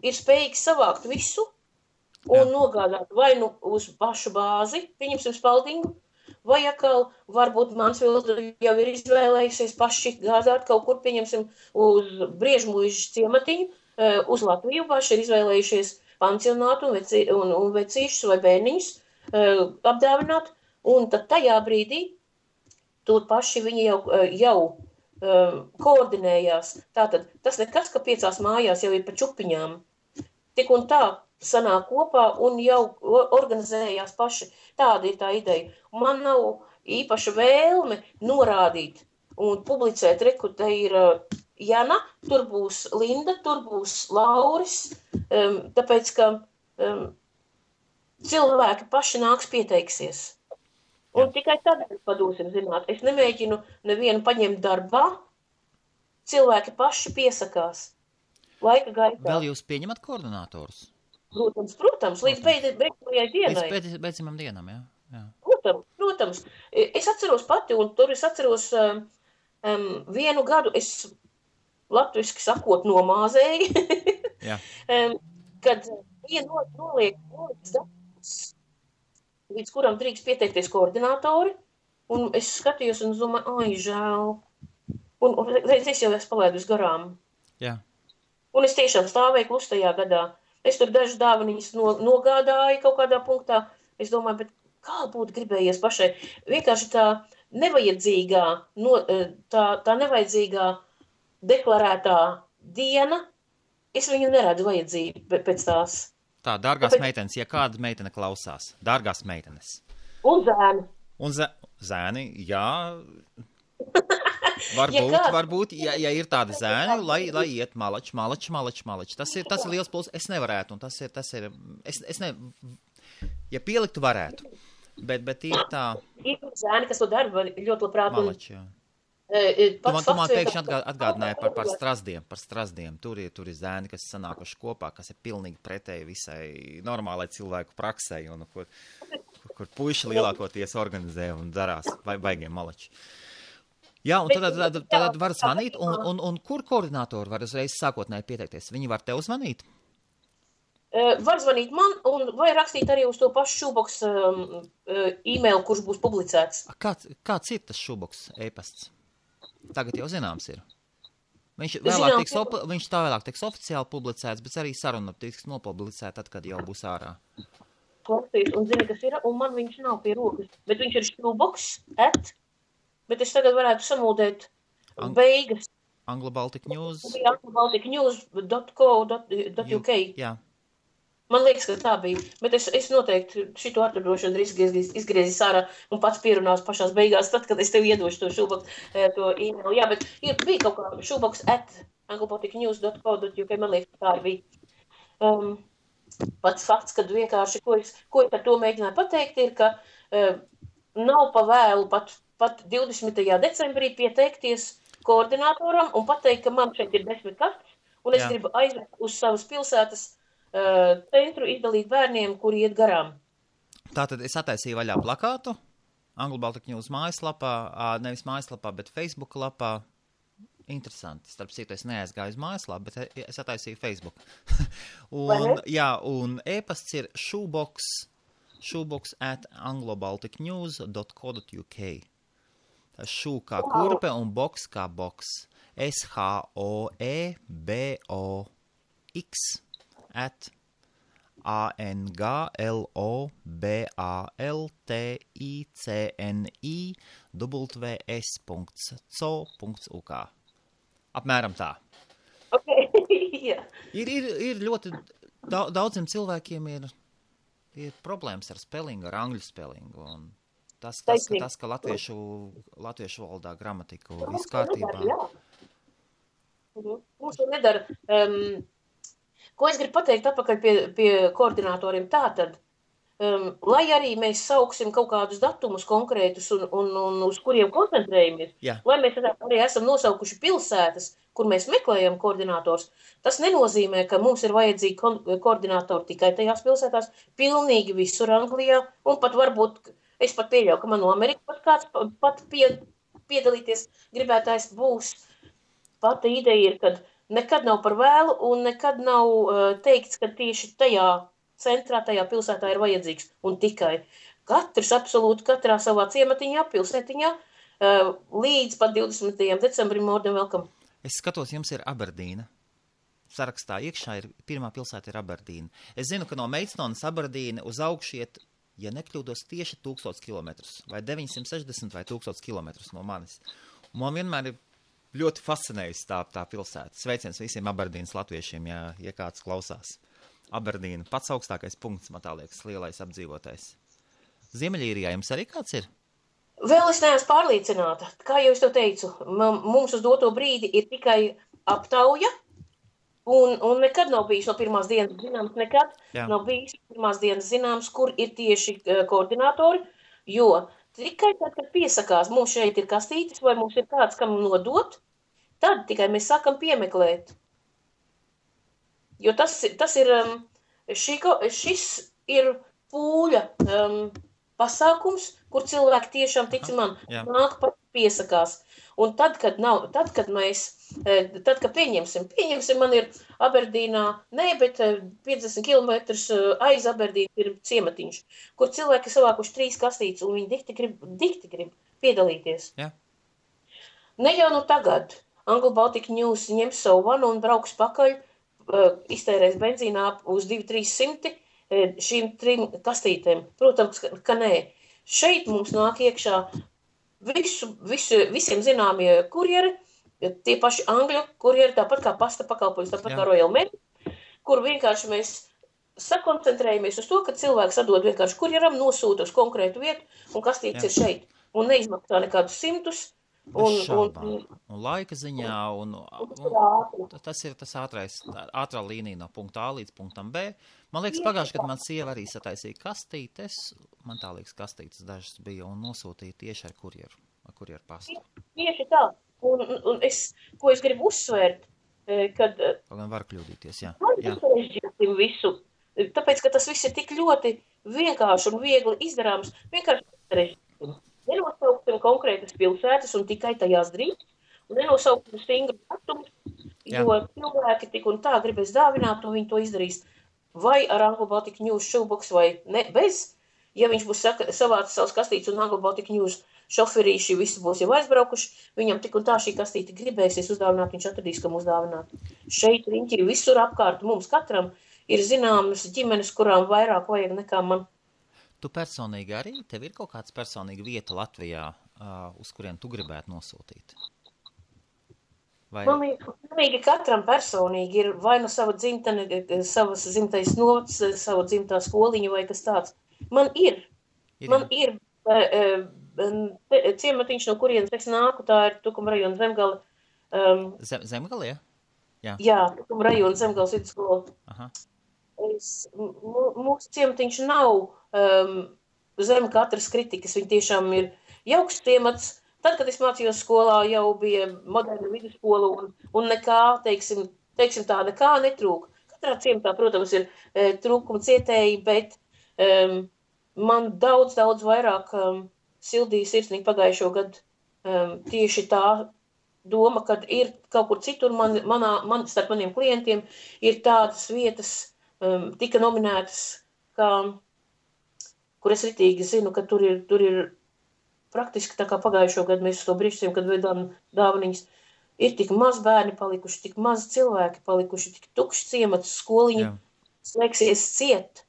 ir spējīgs savākt visu un nogādāt vai nu uz pašu bāzi, pieņemsim Spaldingu, vai atkal varbūt Mansfilda jau ir izvēlējusies paši gādāt kaut kur, pieņemsim, uz Briežmuižas ciematiņu, uz Latviju paši ir izvēlējušies pansionātu un vecīšus vai bērniņus apdāvināt, un tad tajā brīdī tur paši viņi jau koordinējās. Tātad tas nekas, ka 5 mājās jau ir pa čupiņām. Tik un tā sanāk kopā un jau organizējās paši. Tāda ir tā ideja. Man nav īpaša vēlme norādīt un publicēt, reku, te ir Jana, tur būs Linda, tur būs Lauris, tāpēc, ka cilvēki paši nāks pieteiksies. Un tikai tad padosim zināt. Es nemēģinu nevienu paņemt darbā, cilvēki paši piesakās laika gaitā. Vēl jūs pieņemat koordinātorus? Protams, līdz beidzamajai dienai. Līdz beidzamajam dienam, jā. Protams. Es atceros pati, un tur es atceros vienu gadu, es latviski sakot nomāzēju, kad noliek darbus, līdz kuram drīkst pieteikties koordinātori, un es skatījos un domāju, žēl. Un es jau esmu palaidus garām. Jā. Un es tiešām stāvēju klustajā gadā. Es tur dažas dāvaniņas nogādāju kaut kādā punktā. Es domāju, bet kā būtu gribējies pašai? Vienkārši tā nevajadzīgā, tā nevajadzīgā deklarētā diena, es viņu neredzu vajadzību pēc tās. Tā, dārgās meitenes, ja kāda meitene klausās, dārgās meitenes. Un zēni. Un zēni, jā, Varbūt, ja ir tādi zēni, lai iet malači. Tas ir liels puls, es nevarētu, un tas ir, ja pieliktu varētu, bet ir tā. Ir zēni, kas to dara ļoti labprāt. Malači, jā. Tu man pēkšņi atgādināja par strazdiem. Tur ir zēni, kas sanākuši kopā, kas ir pilnīgi pretēji visai normālai cilvēku praksei, un kur puiši lielākoties organizē un darās baigiem malači. Jā, un tad var zvanīt, un kur koordinātori var uzreiz sākotnēji pieteikties? Viņi var tev zvanīt? Var zvanīt man, vai rakstīt arī uz to pašu šūboks e-mail, kurš būs publicēts. Kāds ir tas šūboks e-pasts? Tagad jau zināms ir. Viņš vēlāk tiks oficiāli publicēts, bet arī saruna tiks nopublicēta tad, kad jau būs ārā. Klausīs, un zini, kas ir, un man viņš nav pie rokas, bet viņš ir šūboks, bet es tagad varētu samūdēt beigas. Anglo-Baltic-News. Anglo-Baltic-News.co.uk. Jā. Man liekas, ka tā bija, bet es noteikti šito atradošu un izgriezīs ārā un pats pierunās pašās beigās, tad, kad es tev iedošu to šūboks, to e-mail. Jā, bet bija kaut kā šūboks @anglobalticnews.co.uk, man liekas, tā arī bija. Pats fakts, kad vienkārši, ko es ar to mēģināju pateikt, ir, ka nav pa vēlu pat 20. decembrī pieteikties koordinātoram un pateikt, ka man šeit ir 10 kastes, un es gribu aizvest uz savas pilsētas centru izdalīt bērniem, kuri iet garām. Tātad es attaisīju vaļā plakātu Anglo-Baltic News mājaslapā, nevis mājaslapā, bet Facebook lapā. Interesanti. Starp citu, es neaizgāju uz mājaslapu, bet es attaisīju Facebook. un e-pasts ir shoebox@anglobalticnews.co.uk. Tā šū kā kurpe un boks kā boks. SHOEBOX ANGLOBALTICNIWS.co.uk. Apmēram tā. Okay. Yeah. Ir ļoti daudziem cilvēkiem ir problēmas ar spelingu, ar angļu spelingu. Un tas, ka latviešu valodā gramatiku viss kārtībā. Mums to nedara. Ko es gribu pateikt atpakaļ pie koordinātoriem tātad, lai arī mēs sauksim kaut kādus datumus konkrētus un uz kuriem koncentrējamies, lai mēs arī esam nosaukuši pilsētas, kur mēs meklējam koordinātors, tas nenozīmē, ka mums ir vajadzīgi koordinātori tikai tajās pilsētās, pilnīgi visur Anglijā, un pat varbūt, es pat pieļauju, ka man no Amerikas kāds piedalīties gribētājs būs. Pata ideja ir, kad nekad nav par vēlu un nekad nav teikts, ka tieši tajā centrā, tajā pilsētā ir vajadzīgs. Un tikai katrs, absolūti katrā savā ciematiņā, pilsētiņā, līdz pat 20. decembrim more than welcome. Es skatos, jums ir Aberdīna. Sarakstā iekšā pirmā pilsēta ir Aberdīna. Es zinu, ka no Meidstonas Aberdīna uz augšu iet, ja nekļūdos, tieši 1000 kilometrus, vai 960 vai 1000 kilometrus no manis. Un man vienmēr ir ļoti fascinējusi tā pilsēta. Sveiciens visiem Aberdīnas latviešiem, ja kāds klausās. Aberdīna, pats augstākais punkts, man tā liekas, lielais apdzīvotais. Ziemeļīrijā jums arī kāds ir? Vēl es neesmu pārliecināta. Kā jau es to teicu, mums uz doto brīdi ir tikai aptauja, un nekad nav bijis no pirmās dienas zināms, nav bijis pirmās dienas zināms, kur ir tieši koordinātori, jo tikai tad, kad piesakās, mums šeit ir kastītes, vai mums ir kāds, kam nodot, tad tikai mēs sākam piemeklēt. Jo šis ir pūļa pasākums, kur cilvēki tiešām, tici man, nāk pat piesakās. Un tad, kad pieņemsim, man ir Aberdīnā, bet 50 km aiz Aberdīna ir ciematiņš, kur cilvēki savākuši 3 kastītes, un viņi dikti grib piedalīties. Jā. Ne jau nu tagad. Anglo-Baltic News ņems savu vanu un brauks pakaļ, iztērēs benzīnā uz 200-300 šīm 3 kastītēm. Protams, ka nē. Šeit mums nāk iekšā visiem zināmie kurjeri, tie paši angļu kurjeri, tāpat kā pasta pakalpojums, tāpat kā Royal Mail, kur vienkārši mēs sakoncentrējamies uz to, ka cilvēks atdod vienkārši kurjeram, nosūta uz konkrētu vietu, un kastītes ir šeit. Un neizmaksā nekādus 100, Bez šaubām. Un laika ziņā, un tas ir tas ātrā līnija no punkta A līdz punktam B. Man liekas, pagājuši, kad man sieva arī sataisīja kastītes, man tā liekas kastītes dažas bija, un nosūtīja tieši ar kurjeru pastu. Tieši tā. Un ko es gribu uzsvērt, kad... Gan var kļūdīties, jā. Visu, tāpēc, ka tas viss ir tik ļoti vienkārši un viegli izdarāms, vienkārši sarežģīsim. Nenosauksim konkrētas pilsētas un tikai tajās drīz, un nenosauksim stingru datumus, jo cilvēki tik un tā gribēs dāvināt, un viņi to izdarīs vai ar Anglo Baltic News shoebox vai ne, bez, ja viņš būs savācis savus kastītes un Anglo Baltic News šoferīši visi būs jau aizbraukuši, viņam tik un tā šī kastīte gribēsies uzdāvināt, viņš atradīs, kam uzdāvināt. Šeit riņķi visur apkārt mums katram ir zināmas ģimenes, kurām vairāk vajag nekā man. Tu personīgi arī, tev ir kaut kāds personīga vieta Latvijā, uz kurien tu gribētu nosūtīt? Vai... Man katram personīgi ir vai no sava dzimtene, savas dzimtais novads, sava dzimtā skoliņa vai kas tāds. Man ir ciematiņš, no kurienes es nāku, tā ir Tukuma rajona Zemgala. Zemgala, jā? Jā, Tukuma rajona Zemgalas vidusskola. Aha. Mūsu ciematiņš nav zem katras kritikas, viņi tiešām ir jauks ciemats. Tad, kad es mācījos skolā, jau bija moderna vidusskola un nekā, teiksim tā, nekā netrūk. Katrā ciematā, protams, ir trūkuma cietēji, bet man daudz vairāk sildīja sirsnīgi pagājušo gadu tieši tā doma, kad ir kaut kur citur starp maniem klientiem ir tādas vietas, tika nominētas, kur es ritīgi zinu, ka tur ir praktiski tā kā pagājušo gadu mēs to brīžiem, kad veidām dāvaniņas, ir tik maz bērni palikuši, tik maz cilvēki palikuši, tik tukšs ciemats, skoliņi slēgsies ciet.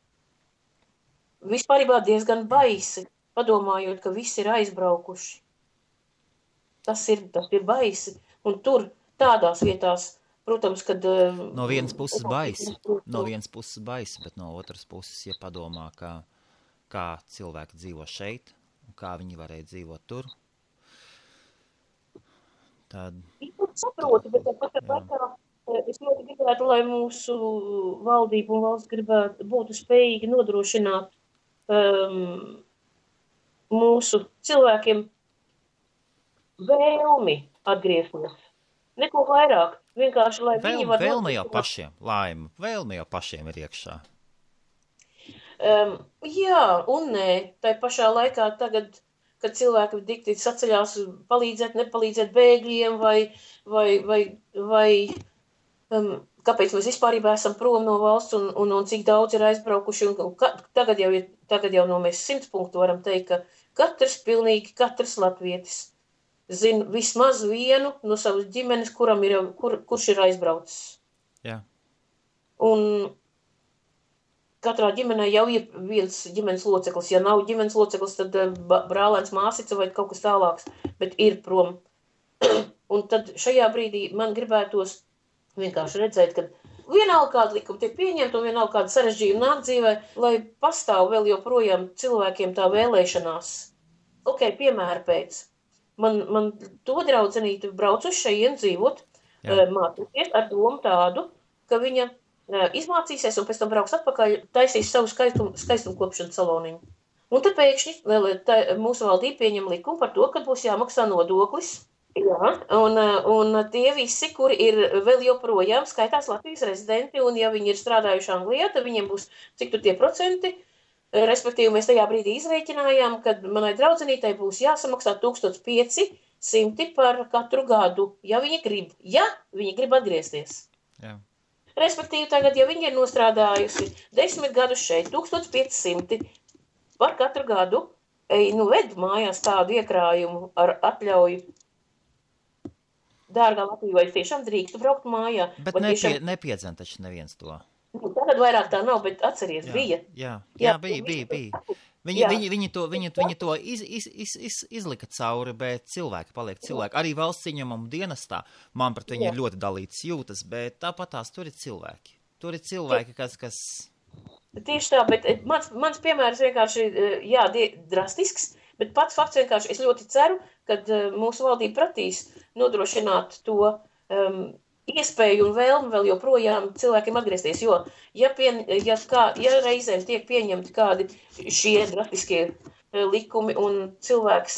Vispārībā diezgan baisi, padomājot, ka visi ir aizbraukuši. Tas ir baisi, un tur tādās vietās, protams, kad... No vienas puses baisi, bet no otras puses, ja padomā, kā cilvēki dzīvo šeit, un kā viņi varēja dzīvot tur, tad... Es saprotu, bet tāpat laikā es ļoti gribētu, lai mūsu valdība un valsts būtu spējīgi nodrošināt mūsu cilvēkiem vēlmi atgriezties. Neko vairāk. Vienkārši, lai viņi var... Vēlme jau pašiem ir iekšā. Jā, un nē. Tai pašā laikā tagad, kad cilvēki dikti saceļās palīdzēt, nepalīdzēt bēgļiem vai kāpēc mēs vispārībā esam prom no valsts un cik daudz ir aizbraukuši. Tagad jau no mēs 100 punktu varam teikt, ka pilnīgi katrs latvietis zinu vismaz vienu no savas ģimenes, kurš ir aizbraucis. Jā. Un katrā ģimenē jau ir viens ģimenes loceklis. Ja nav ģimenes loceklis, tad brālēns, māsica vai kaut kas tālāks, bet ir prom. Un tad šajā brīdī man gribētos vienkārši redzēt, ka vienalga kāda likuma tiek pieņemta un vienalga kāda sarežģījuma nāk dzīvē, lai pastāv vēl joprojām cilvēkiem tā vēlēšanās. Piemēra pēc. Man to draudzenīti brauc uz šeien dzīvot, mācīties ar domu tādu, ka viņa izmācīsies un pēc tam brauks atpakaļ, taisīs savu skaistumkopšanas saloniņu. Un tad pēkšņi mūsu valdība pieņem likumu par to, ka būs jāmaksā nodoklis. Jā, un tie visi, kuri ir vēl joprojām skaitās Latvijas rezidenti, un ja viņi ir strādājuši Anglijā, tad viņiem būs cik tur tie procenti. Respektīvi, mēs tajā brīdī izrēķinājām, kad manai draudzenītei būs jāsamaksā 1500 par katru gadu, ja viņi grib atgriezties. Jā. Respektīvi, tagad, ja viņi ir nostrādājusi 10 gadus šeit, 1500 par katru gadu, ved mājās tādu iekrājumu ar atļauju. Dārgā Latvija, vai tiešām drīkstu braukt mājā? Bet nepiedzem taču neviens to. Tagad vairāk tā nav, bet atceries, bija. Jā, bija. Viņi to izlika cauri, bet cilvēki paliek cilvēki. Arī valsts ieņemumu dienestā man pret viņu ir ļoti dalīts jūtas, bet tāpat tās tur ir cilvēki. Tur ir cilvēki, kas... Tieši tā, bet mans piemērs vienkārši, drastisks, Bet pats fakts vienkārši, es ļoti ceru, ka mūsu valdība pratīs nodrošināt to iespēju un vēlmi vēl joprojām cilvēkiem atgriezties, jo ja reizēm tiek pieņemti kādi šie drastiskie likumi un cilvēks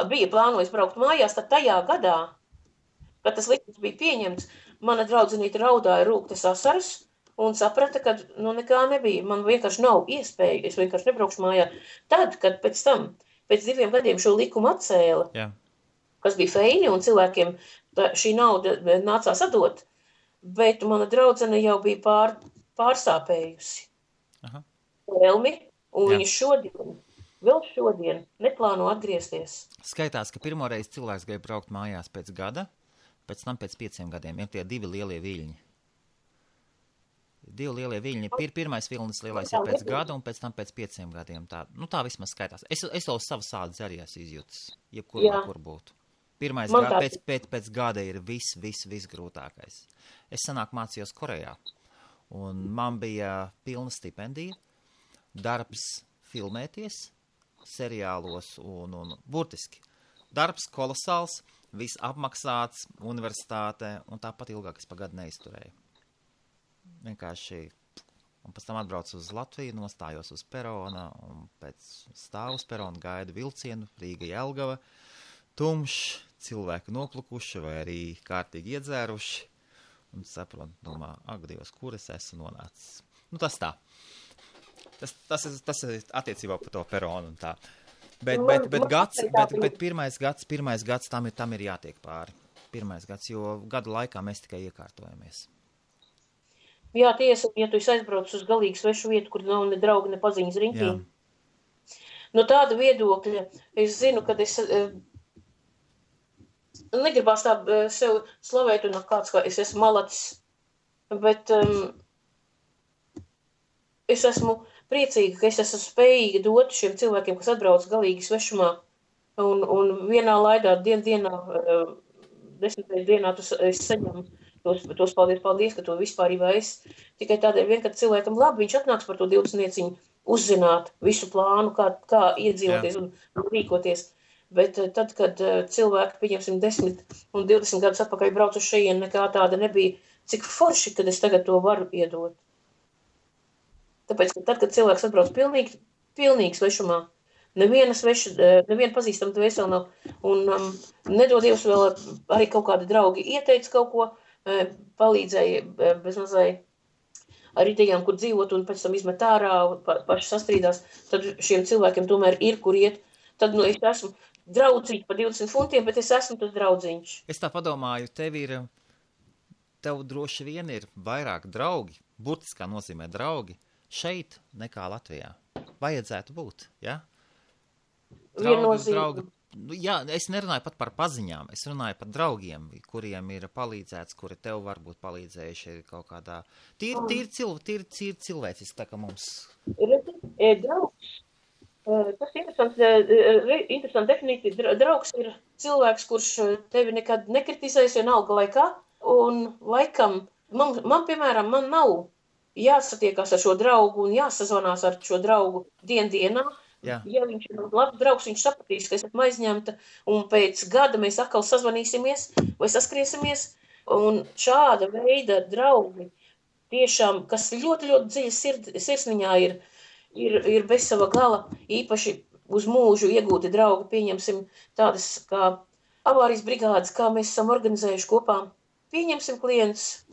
bija plānojis braukt mājās, tad tajā gadā, kad tas likums bija pieņemts, mana draudzenīte raudāja rūktas asaras un saprata, ka nekā nebija. Man vienkārši nav iespēja, es vienkārši nebraukšu mājā. Tad, kad pēc 2 gadiem šo likumu atcēla, kas bija feini un cilvēkiem šī nauda nācās atdot, bet mana draudzene jau bija pārsāpējusi vēlmi, un viņa vēl šodien neplāno atgriezties. Skaitās, ka pirmoreiz cilvēks grib braukt mājās pēc gada, pēc tam pēc 5 gadiem, ir tie 2 lielie viļņi. 2 lielie viļņi, pirmais vilnis lielais ir pēc gada un pēc tam pēc 5 gadiem. Tā vismaz skaitās. Es to savas sādas arī esmu izjūtis, jebkur būtu. Pirmais pēc gada ir viss grūtākais. Es senāk mācījos Korejā, un man bija pilna stipendija, darbs filmēties seriālos un burtiski. Darbs kolosāls, viss apmaksāts, universitāte, un tāpat ilgāk es pa gadu neizturēju. Vienkārši, un pēc tam atbraucu uz Latviju, nostājos uz perona, un pēc stāvu uz perona gaidu vilcienu, Rīga Jelgava, tumšs, cilvēki noplukuši vai arī kārtīgi iedzēruši, un saprotu, domā, ak, Dievs, kur es esmu nonācis. Tas tā. Tas ir attiecībā par to peronu un tā. Bet pirmais gads tam ir jātiek pāri. Pirmais gads, jo gadu laikā mēs tikai iekārtojamies. Jā, tiesa, ja tu esi aizbraucis uz galīgi svešu vietu, kur nav ne draugi, ne paziņas riņķī. No tāda viedokļa es zinu, kad es negribās tā sev slavēt un kāds, kā es esmu malacis, bet es esmu priecīga, ka es esmu spējīga dot šiem cilvēkiem, kas atbrauc galīgi svešumā un vienā laidā dienā, 10. dienā es saņemu tos paldies, ka to vispārībā es tikai tādēļ vien, kad cilvēkam labi, viņš atnāks par to 20 uzzināt visu plānu, kā iedzīvoties un rīkoties. Bet tad, kad cilvēki, pieņemsim, 10 un 20 gadus atpakaļ brauc uz šejienu, nekā tāda nebija, cik forši, kad es tagad to varu iedot. Tāpēc, ka tad, kad cilvēks atbrauc pilnīgi svešumā, neviena pazīstama dvēseli nav, un nedod Dievs vēl arī kaut kādi draugi ieteica kaut ko, palīdzēja bezmazai ar idejām, kur dzīvot, un pēc tam izmet ārā, paši sastrīdās, tad šiem cilvēkiem tomēr ir, kur iet. Tad, es esmu draudzīgs par 20 funtiem, bet es esmu tas draudzīņš. Es tā padomāju, tev droši vien ir vairāk draugi, burtiskā nozīmē draugi, šeit nekā Latvijā. Vajadzētu būt, ja? Draugi. Jā, es nerunāju pat par paziņām, es runāju par draugiem, kuriem ir palīdzēts, kuri tev varbūt palīdzējuši kaut kādā. Tīri cilvēciski, tā kā mums. Draugs. Tas ir interesanti definīcija. Draugs ir cilvēks, kurš tevi nekad nekritizēs vienalga laikā, un laikam, man piemēram, man nav jāsatiekās ar šo draugu un jāsazvanās ar šo draugu dienā. Ja viņš ir labs draugs, viņš sapratīs, ka es esmu aizņemta, un pēc gada mēs atkal sazvanīsimies vai saskriesimies, un šāda veida draugi tiešām, kas ļoti, ļoti dziļi sirsniņā ir bez sava gala, īpaši uz mūžu iegūti draugi, pieņemsim tādas kā avārijas brigādes, kā mēs esam organizējuši kopā, pieņemsim klients,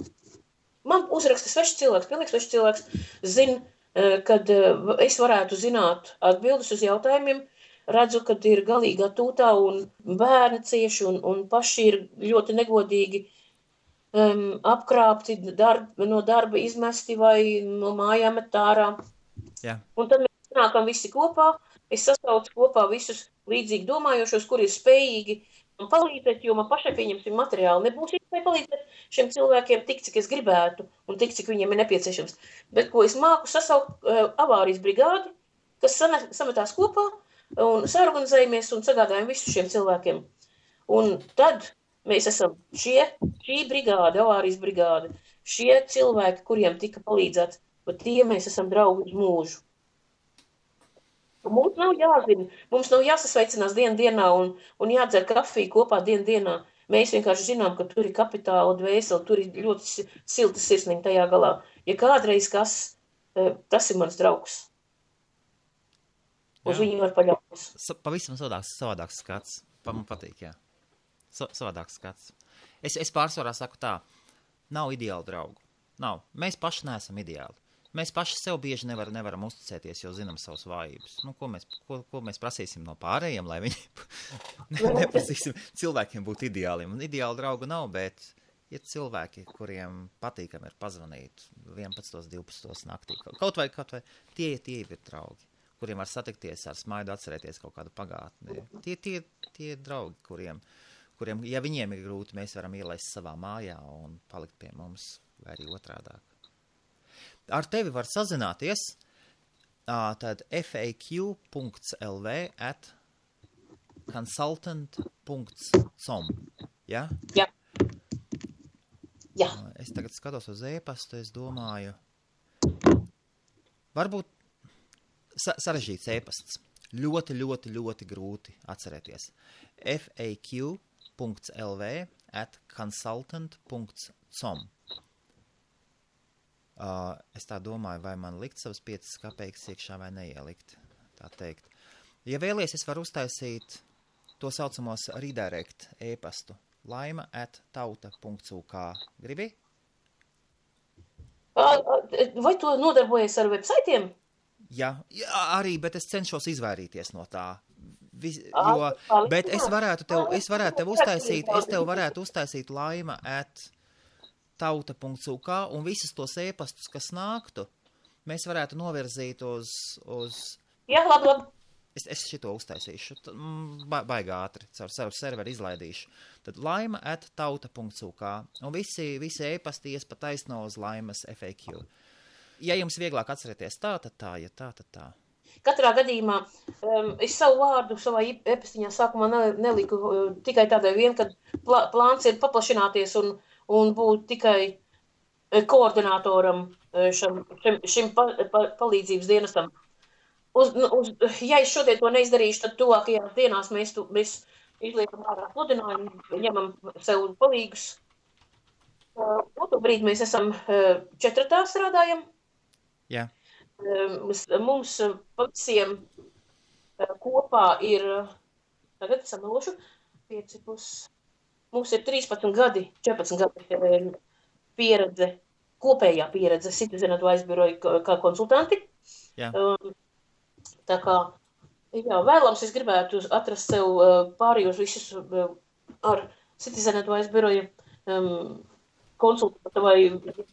man uzraksta svešs cilvēks, pilnīgs svešs cilvēks, zina, kad es varētu zināt atbildes uz jautājumiem, redzu, kad ir galīgā tūtā un bērni cieši un paši ir ļoti negodīgi apkrāpti, no darba izmesti vai no mājām met ārā. Jā. Un tad mēs nākam visi kopā, es sasaucu kopā visus līdzīgi domājošos, kuri ir spējīgi man palīdzēt, jo man pašai pieņemsim materiāli nebūs iespēja palīdzēt šiem cilvēkiem tik, cik es gribētu un tik, cik viņiem ir nepieciešams. Bet, ko es māku sasaukt avārijas brigādi, kas sametās kopā un saorganizējamies un sagādājam visu šiem cilvēkiem. Un tad mēs esam šī brigāde, avārijas brigāde, šie cilvēki, kuriem tika palīdzēts, bet tie mēs esam draugi uz mūžu. Mums nav jāzina, mums nav jāsasveicinās dienā un jādzer kafiju kopā dienā. Mēs vienkārši zinām, ka tur ir kapitāla dvēseli, tur ir ļoti silta sirsniņa tajā galā. Ja kādreiz tas ir mans draugs. Uz viņu var paļauties. Pavisam savādāks skats. Man patīk, jā. Savādāks skats. Es pārsvarā saku tā, nav ideāli draugu. Nav. Mēs paši neesam ideāli. Mēs paši sev bieži nevaram uzticēties, jo zinām savas vājības. Ko mēs prasīsim no pārējiem, lai viņi neprasīsim cilvēkiem būt ideāliem. Un ideāli draugu nav, bet ir cilvēki, kuriem patīkam ir pazvanīt 11, 12 naktī. Kaut vai tie ir draugi, kuriem var satikties ar smaidu, atcerēties kaut kādu pagātni. Tie draugi, kuriem, ja viņiem ir grūti, mēs varam ielaist savā mājā un palikt pie mums, vai arī otrādāk. Ar tevi var sazināties tad faq.lv @consultant.com. Ja? Jā. Jā. Es tagad skatos uz e-pastu, es domāju, varbūt sarežģīts e-pasts. Ļoti grūti atcerēties. faq.lv @consultant.com. Es tā domāju, vai man likt savas 5 kapeikas iekšā vai neielikt, tā teikt. Ja vēlies, es varu uztaisīt to saucamos redirect e-pastu. laima@tauta.uk. Gribi? Vai tu nodarbojies ar websaitiem? Jā, arī, bet es cenšos izvairīties no tā. Bet es varētu tev uztaisīt laima@tauta.uk un visus tos e-pastus, kas nāktu, mēs varētu novirzīt uz... Jā, labi. Es šito uztaisīšu, baigā ātri, caur serveri izlaidīšu. Tad laima@tauta.uk un visi e-pasti ies pa taisno uz Laimas FAQ. Ja jums vieglāk atcerēties tā, tad tā, ja tā, tad tā. Katrā gadījumā es savu vārdu savā e-pastiņā sākumā neliku tikai tādai vien, kad plāns ir paplašināties un būt tikai koordinatoram šim palīdzības dienestam. Ja es šodien to neizdarīšu, tad tuvākajās dienās mēs izliekam ārā pludinājumu, ņemam sev palīgus. Otru brīdi mēs esam 4 strādājam. Jā. Mums visiem kopā ir, tagad samelošu, 5 plus, mums ir 13 gadi, 14 gadi pieredze, kopējā pieredze Citizen Advice biroja kā konsultanti. Jā. Tā kā, jā, vēlams es gribētu atrast sev pārējos visus ar Citizen Advice biroja konsultanta vai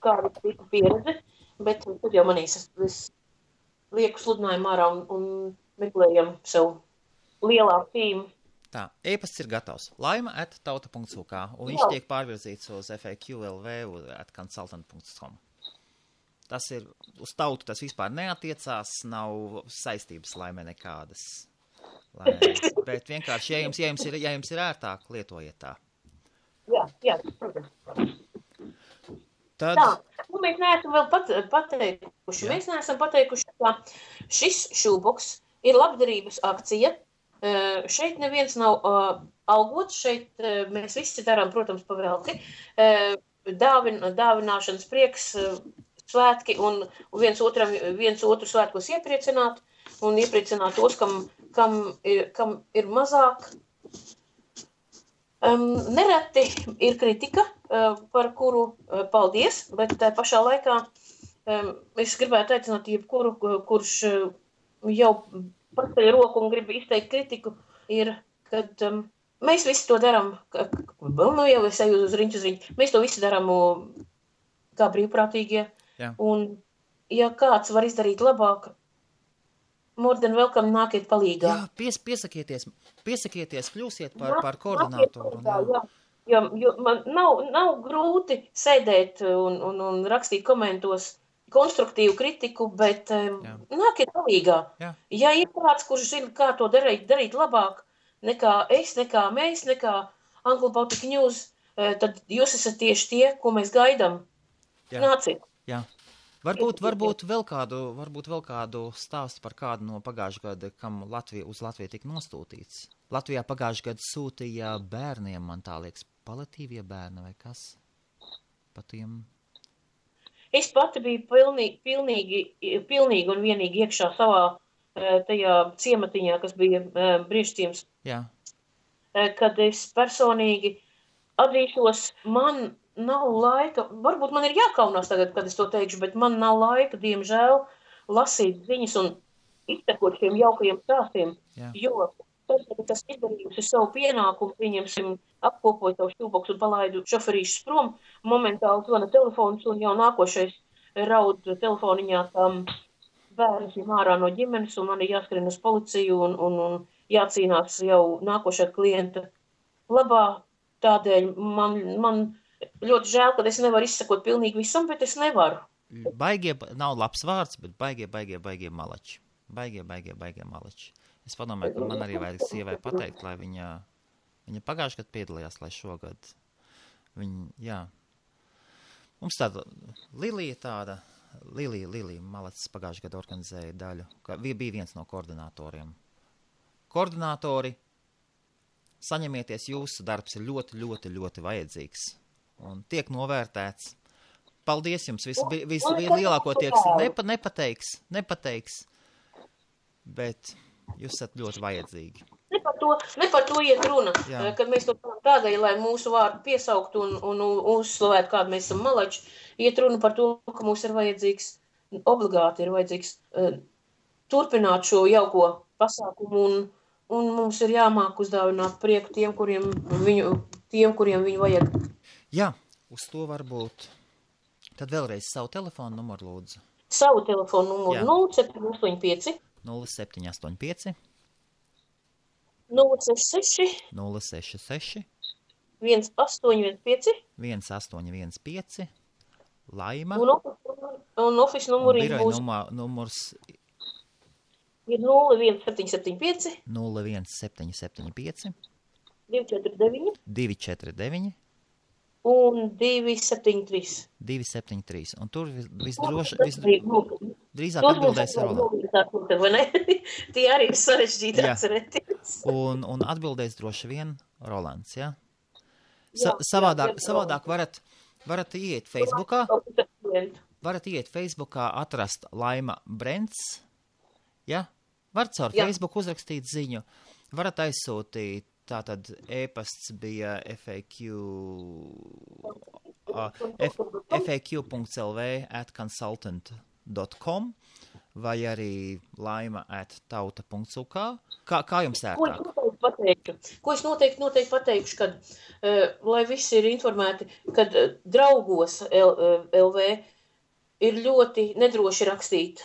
kādu tipu pieredzi, bet tad jau manīs es lieku sludinājumu ārā un meklējam sev lielāku tīmu. Tā, e-pasts ir gatavs. Laima@tauta.uk un viņš tiek pārvirzīts uz FAQ.lv @consultant.com. Tas ir, uz tautu tas vispār neatiecās, nav saistības Laimē nekādas. Bet vienkārši, ja jums ir ērtāk, lietojiet tā. Jā, protams. Tad... Tā, mēs neesam vēl pateikuši. Mēs neesam pateikuši, ka šis šūboks ir labdarības akcija. Šeit neviens nav algots, šeit mēs visi darām, protams, pavelti. Dāvināšanas prieks, svētki un viens otru svētkos iepriecināt un iepriecināt tos, kam ir mazāk. Nereti ir kritika, par kuru paldies, bet pašā laikā es gribētu aicināt jebkuru, kurš jau paceļ roku un grib izteikt kritiku, ir, kad mēs visi to darām, jau es eju uz riņķu, mēs to visi darām kā brīvprātīgie. Jā. Un, ja kāds var izdarīt labāk, more than welcome, nākiet palīgā. Jā, piesakieties, kļūsiet par koordinātoru. Jo man nav grūti sēdēt un rakstīt komentos konstruktīvu kritiku, bet nākiet palīgā. Jā. Ja ir kāds, kurš zina, kā to darīt labāk, nekā es, nekā mēs, nekā Anglo Baltic News, tad jūs esat tieši tie, ko mēs gaidām. Jā. Nāciet. Jā. Varbūt vēl kādu stāstu par kādu no pagājušā gada, kam uz Latviju tika nostūtīts. Latvijā pagājušā gada sūtīja bērniem, man tā liekas, paliatīvie bērni vai kas? Pa tiem... Es pati biju pilnīgi un vienīgi iekšā savā tajā ciematiņā, kas bija Briežciems. Jā. Kad es personīgi atzīšos, man nav laika, varbūt man ir jākaunās tagad, kad es to teikšu, bet man nav laika, diemžēl, lasīt ziņas un iztekot šiem jaukajiem stāstiem, jo tad, kad tas izdarījusi savu pienākumu, pieņemsim, apkopoju savu šūboks un palaidu šoferīšus prom, momentāli zvana telefons un jau nākošais raud telefoniņā tam bērns ārā no ģimenes un man ir jāskrien uz policiju un jācīnās jau nākošā klienta labā. Tādēļ man ļoti žēl, ka es nevaru izsakot pilnīgi visam, bet es nevaru. Baigie, nav labs vārds, bet baigie malači. Baigie malači. Es padomāju, ka man arī vajag sievai pateikt, lai viņa pagājušajā gadā piedalījās, lai šogad viņa, mums tāda Lilija Malacis pagājušajā gadā organizēja daļu, ka bija viens no koordinatoriem. Koordinatori, saņemieties, jūsu darbs ir ļoti, ļoti, ļoti vajadzīgs un tiek novērtēts. Paldies jums, vislielākoties nepateiks, bet jūs esat ļoti vajadzīgi. Ne par to iet runa, kad mēs to tādēļ, lai mūsu vārdu piesaukt un uzslavēt, kādu mēs esam malači, iet runa par to, ka mums ir vajadzīgs, obligāti ir vajadzīgs turpināt šo jauko pasākumu un mums ir jāmāk uzdāvināt prieku tiem, kuriem viņu vajag. Jā, uz to varbūt. Tad vēlreiz savu telefonu numuru lūdzu. Savu telefonu numuru 0785 0785 066 1815 Laima. Un office numuri būs. Numurs ir 01775 249 249 un 273. Un tur drīzāk atbildēs Roland. Tie arī ir sarežģīti atcerēties. Un atbildēs droši vien Rolands, jā? Savādāk varat iet Facebookā. Varat iet Facebookā, atrast Laima Brents, ja? Varat caur Facebook uzrakstīt ziņu. Varat aizsūtīt, tātad e-pasts bija faq.lv@consultant.com vai arī laima@tauta.uk. Kā jums ērtāk? Ko es noteikti pateikšu, kad, lai visi ir informēti, kad draugos LV ir ļoti nedroši rakstīt,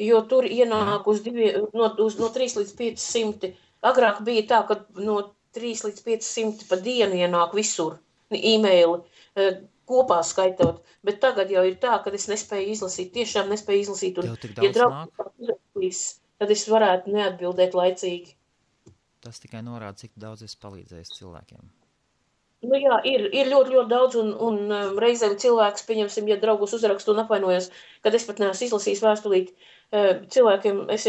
jo tur ienāk no 3 līdz 500. Agrāk bija tā, ka no 3 līdz 500 pa dienu ienāk visur e-maili kopā skaitot, bet tagad jau ir tā, ka es nespēju izlasīt, tiešām nespēju izlasīt, un ja draugs, tad es varētu neatbildēt laicīgi. Tas tikai norāda, cik daudz es palīdzējis cilvēkiem. Nu jā, ir ļoti, ļoti daudz, un reizēm cilvēks, pieņemsim, ja draugus uzrakstu un apvainojas, kad es pat neesmu izlasījis vēstulīt cilvēkiem, es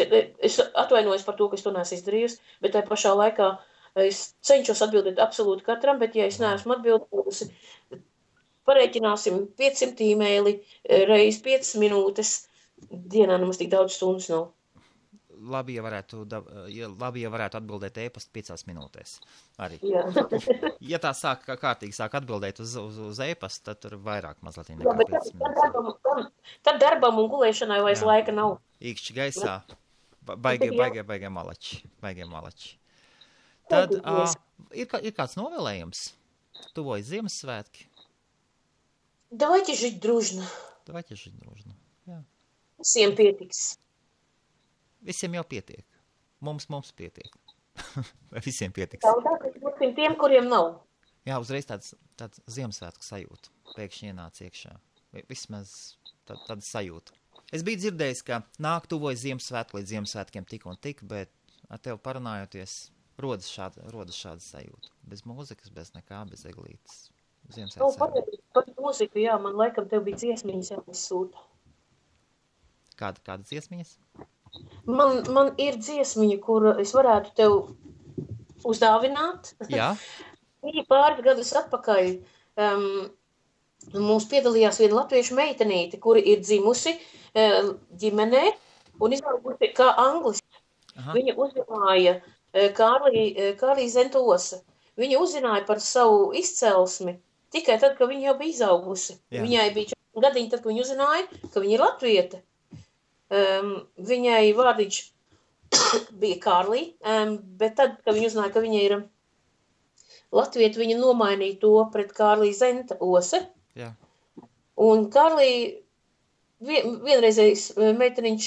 atvainojos par to, ka es to neesmu izdarījusi, bet tajā pašā laikā es cenšos atbildēt absolūti katram, bet ja es neesmu atbildējusi, pareiķināsim 500 e-maili reiz 5 minūtes, dienā nemaz tik daudz stundas nav. Labi, ja varētu atbildēt e-pastu 5 minūtēs. Arī. Ja tā kārtīgi sāk atbildēt uz e-pastu, tad tur vairāk mazliet nekā 5 minūtes. Tad darbam un gulēšanai vairs laika nav. Īkšķi gaisā. Baigie malači. Tad ir kāds novēlējums? Tuvojas Ziemassvētki? Давайте жить дружно. Jā. Visiem pietiks. Visiem jau pietiek. Mums pietiek. Vai visiem pietiks? Daudāk, tiem, kuriem nav. Jā, uzreiz tāds Ziemassvētku sajūta. Pēkšņi ienāca iekšā. Vismaz tāda sajūta. Es biju dzirdējis, ka tuvojas Ziemassvētku līdz Ziemassvētkiem tik un tik, bet ar tevi parunājoties rodas šāda sajūta. Bez mūzikas, bez nekā, bez eglītes. Ziemassvētku sajūta. Par mūziku, jā, man laikam tev bija dziesmiņas jāizsūta. Kāda dziesmiņas? Man ir dziesmiņa, kuru es varētu tev uzdāvināt. Jā. Viņa pāris gadus atpakaļ mums piedalījās viena latviešu meitenīte, kura ir dzimusi ģimenē un izaugusi kā anglists. Viņa uzzināja Kārlī Zentosa. Viņa uzzināja par savu izcelsmi tikai tad, kad viņa jau bija izaugusi. Jā. Viņai bija 4 gadiņi, tad, kad viņa uzzināja, ka viņa ir latviete. Viņai vārdiņš bija Kārlī, bet tad, kad viņa uzzināja, ka viņa ir latviete, viņa nomainīja to pret Kārlī Zentose. Jā. Un Kārlī vienreizējs meiteniņš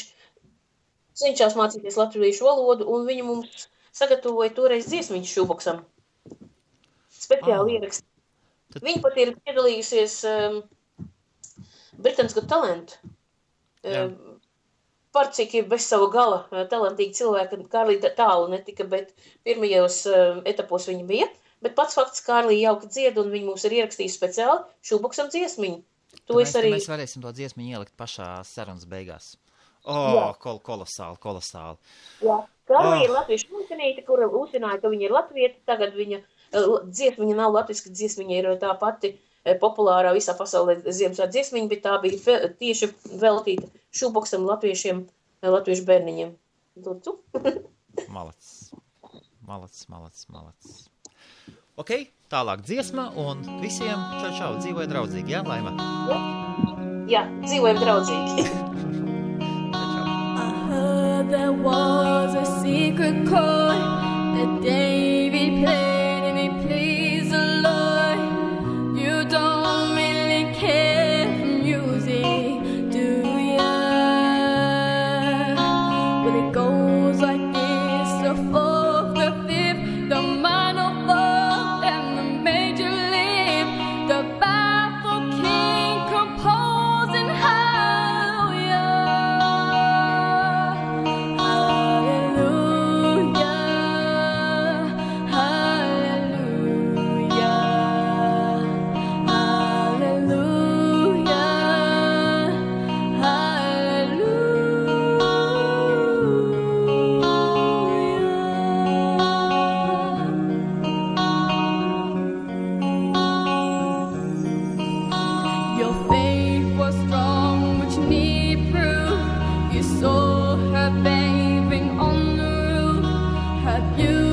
cenšās mācīties latviešu valodu, un viņa mums sagatavoja toreiz dziesmiņu šūboksam. Speciāli ierakst. Viņa pat ir piedalījusies Britain's Got Talent. Par cik ir bez savu gala talantīgi cilvēki, Kārlī tālu netika, bet pirmajos etapos viņa bija. Bet pats fakts, Kārlī jauki dzied, un viņa mums ir ierakstījusi speciāli šūboksam dziesmiņu. Mēs varēsim to dziesmiņu ielikt pašā sarunas beigās. Kolosāli. Jā, Kārlī ir latviešu meitenīte, kura uzzināja, ka viņa ir latvieta, tagad viņa dziesmiņa nav latviska, dziesmiņa ir tā pati populārā visā pasaulē Ziemassvētku dziesmiņa, bet tā bija tieši veltīta šūboksam latviešu bērniņiem. Lūdzu. Malac. Ok, tālāk dziesma un visiem čau, dzīvoja draudzīgi, jā, Laima? Jā, dzīvojam draudzīgi. I heard there was a secret chord that David played and he pleased the Lord. You don't really care for music, do ya? Well, it goes like this, the fourth, the fifth, the minor fourth, and the major lift, the baffled king composing hallelujah. Your faith was strong, which need proof. You saw her bathing on the roof, her beauty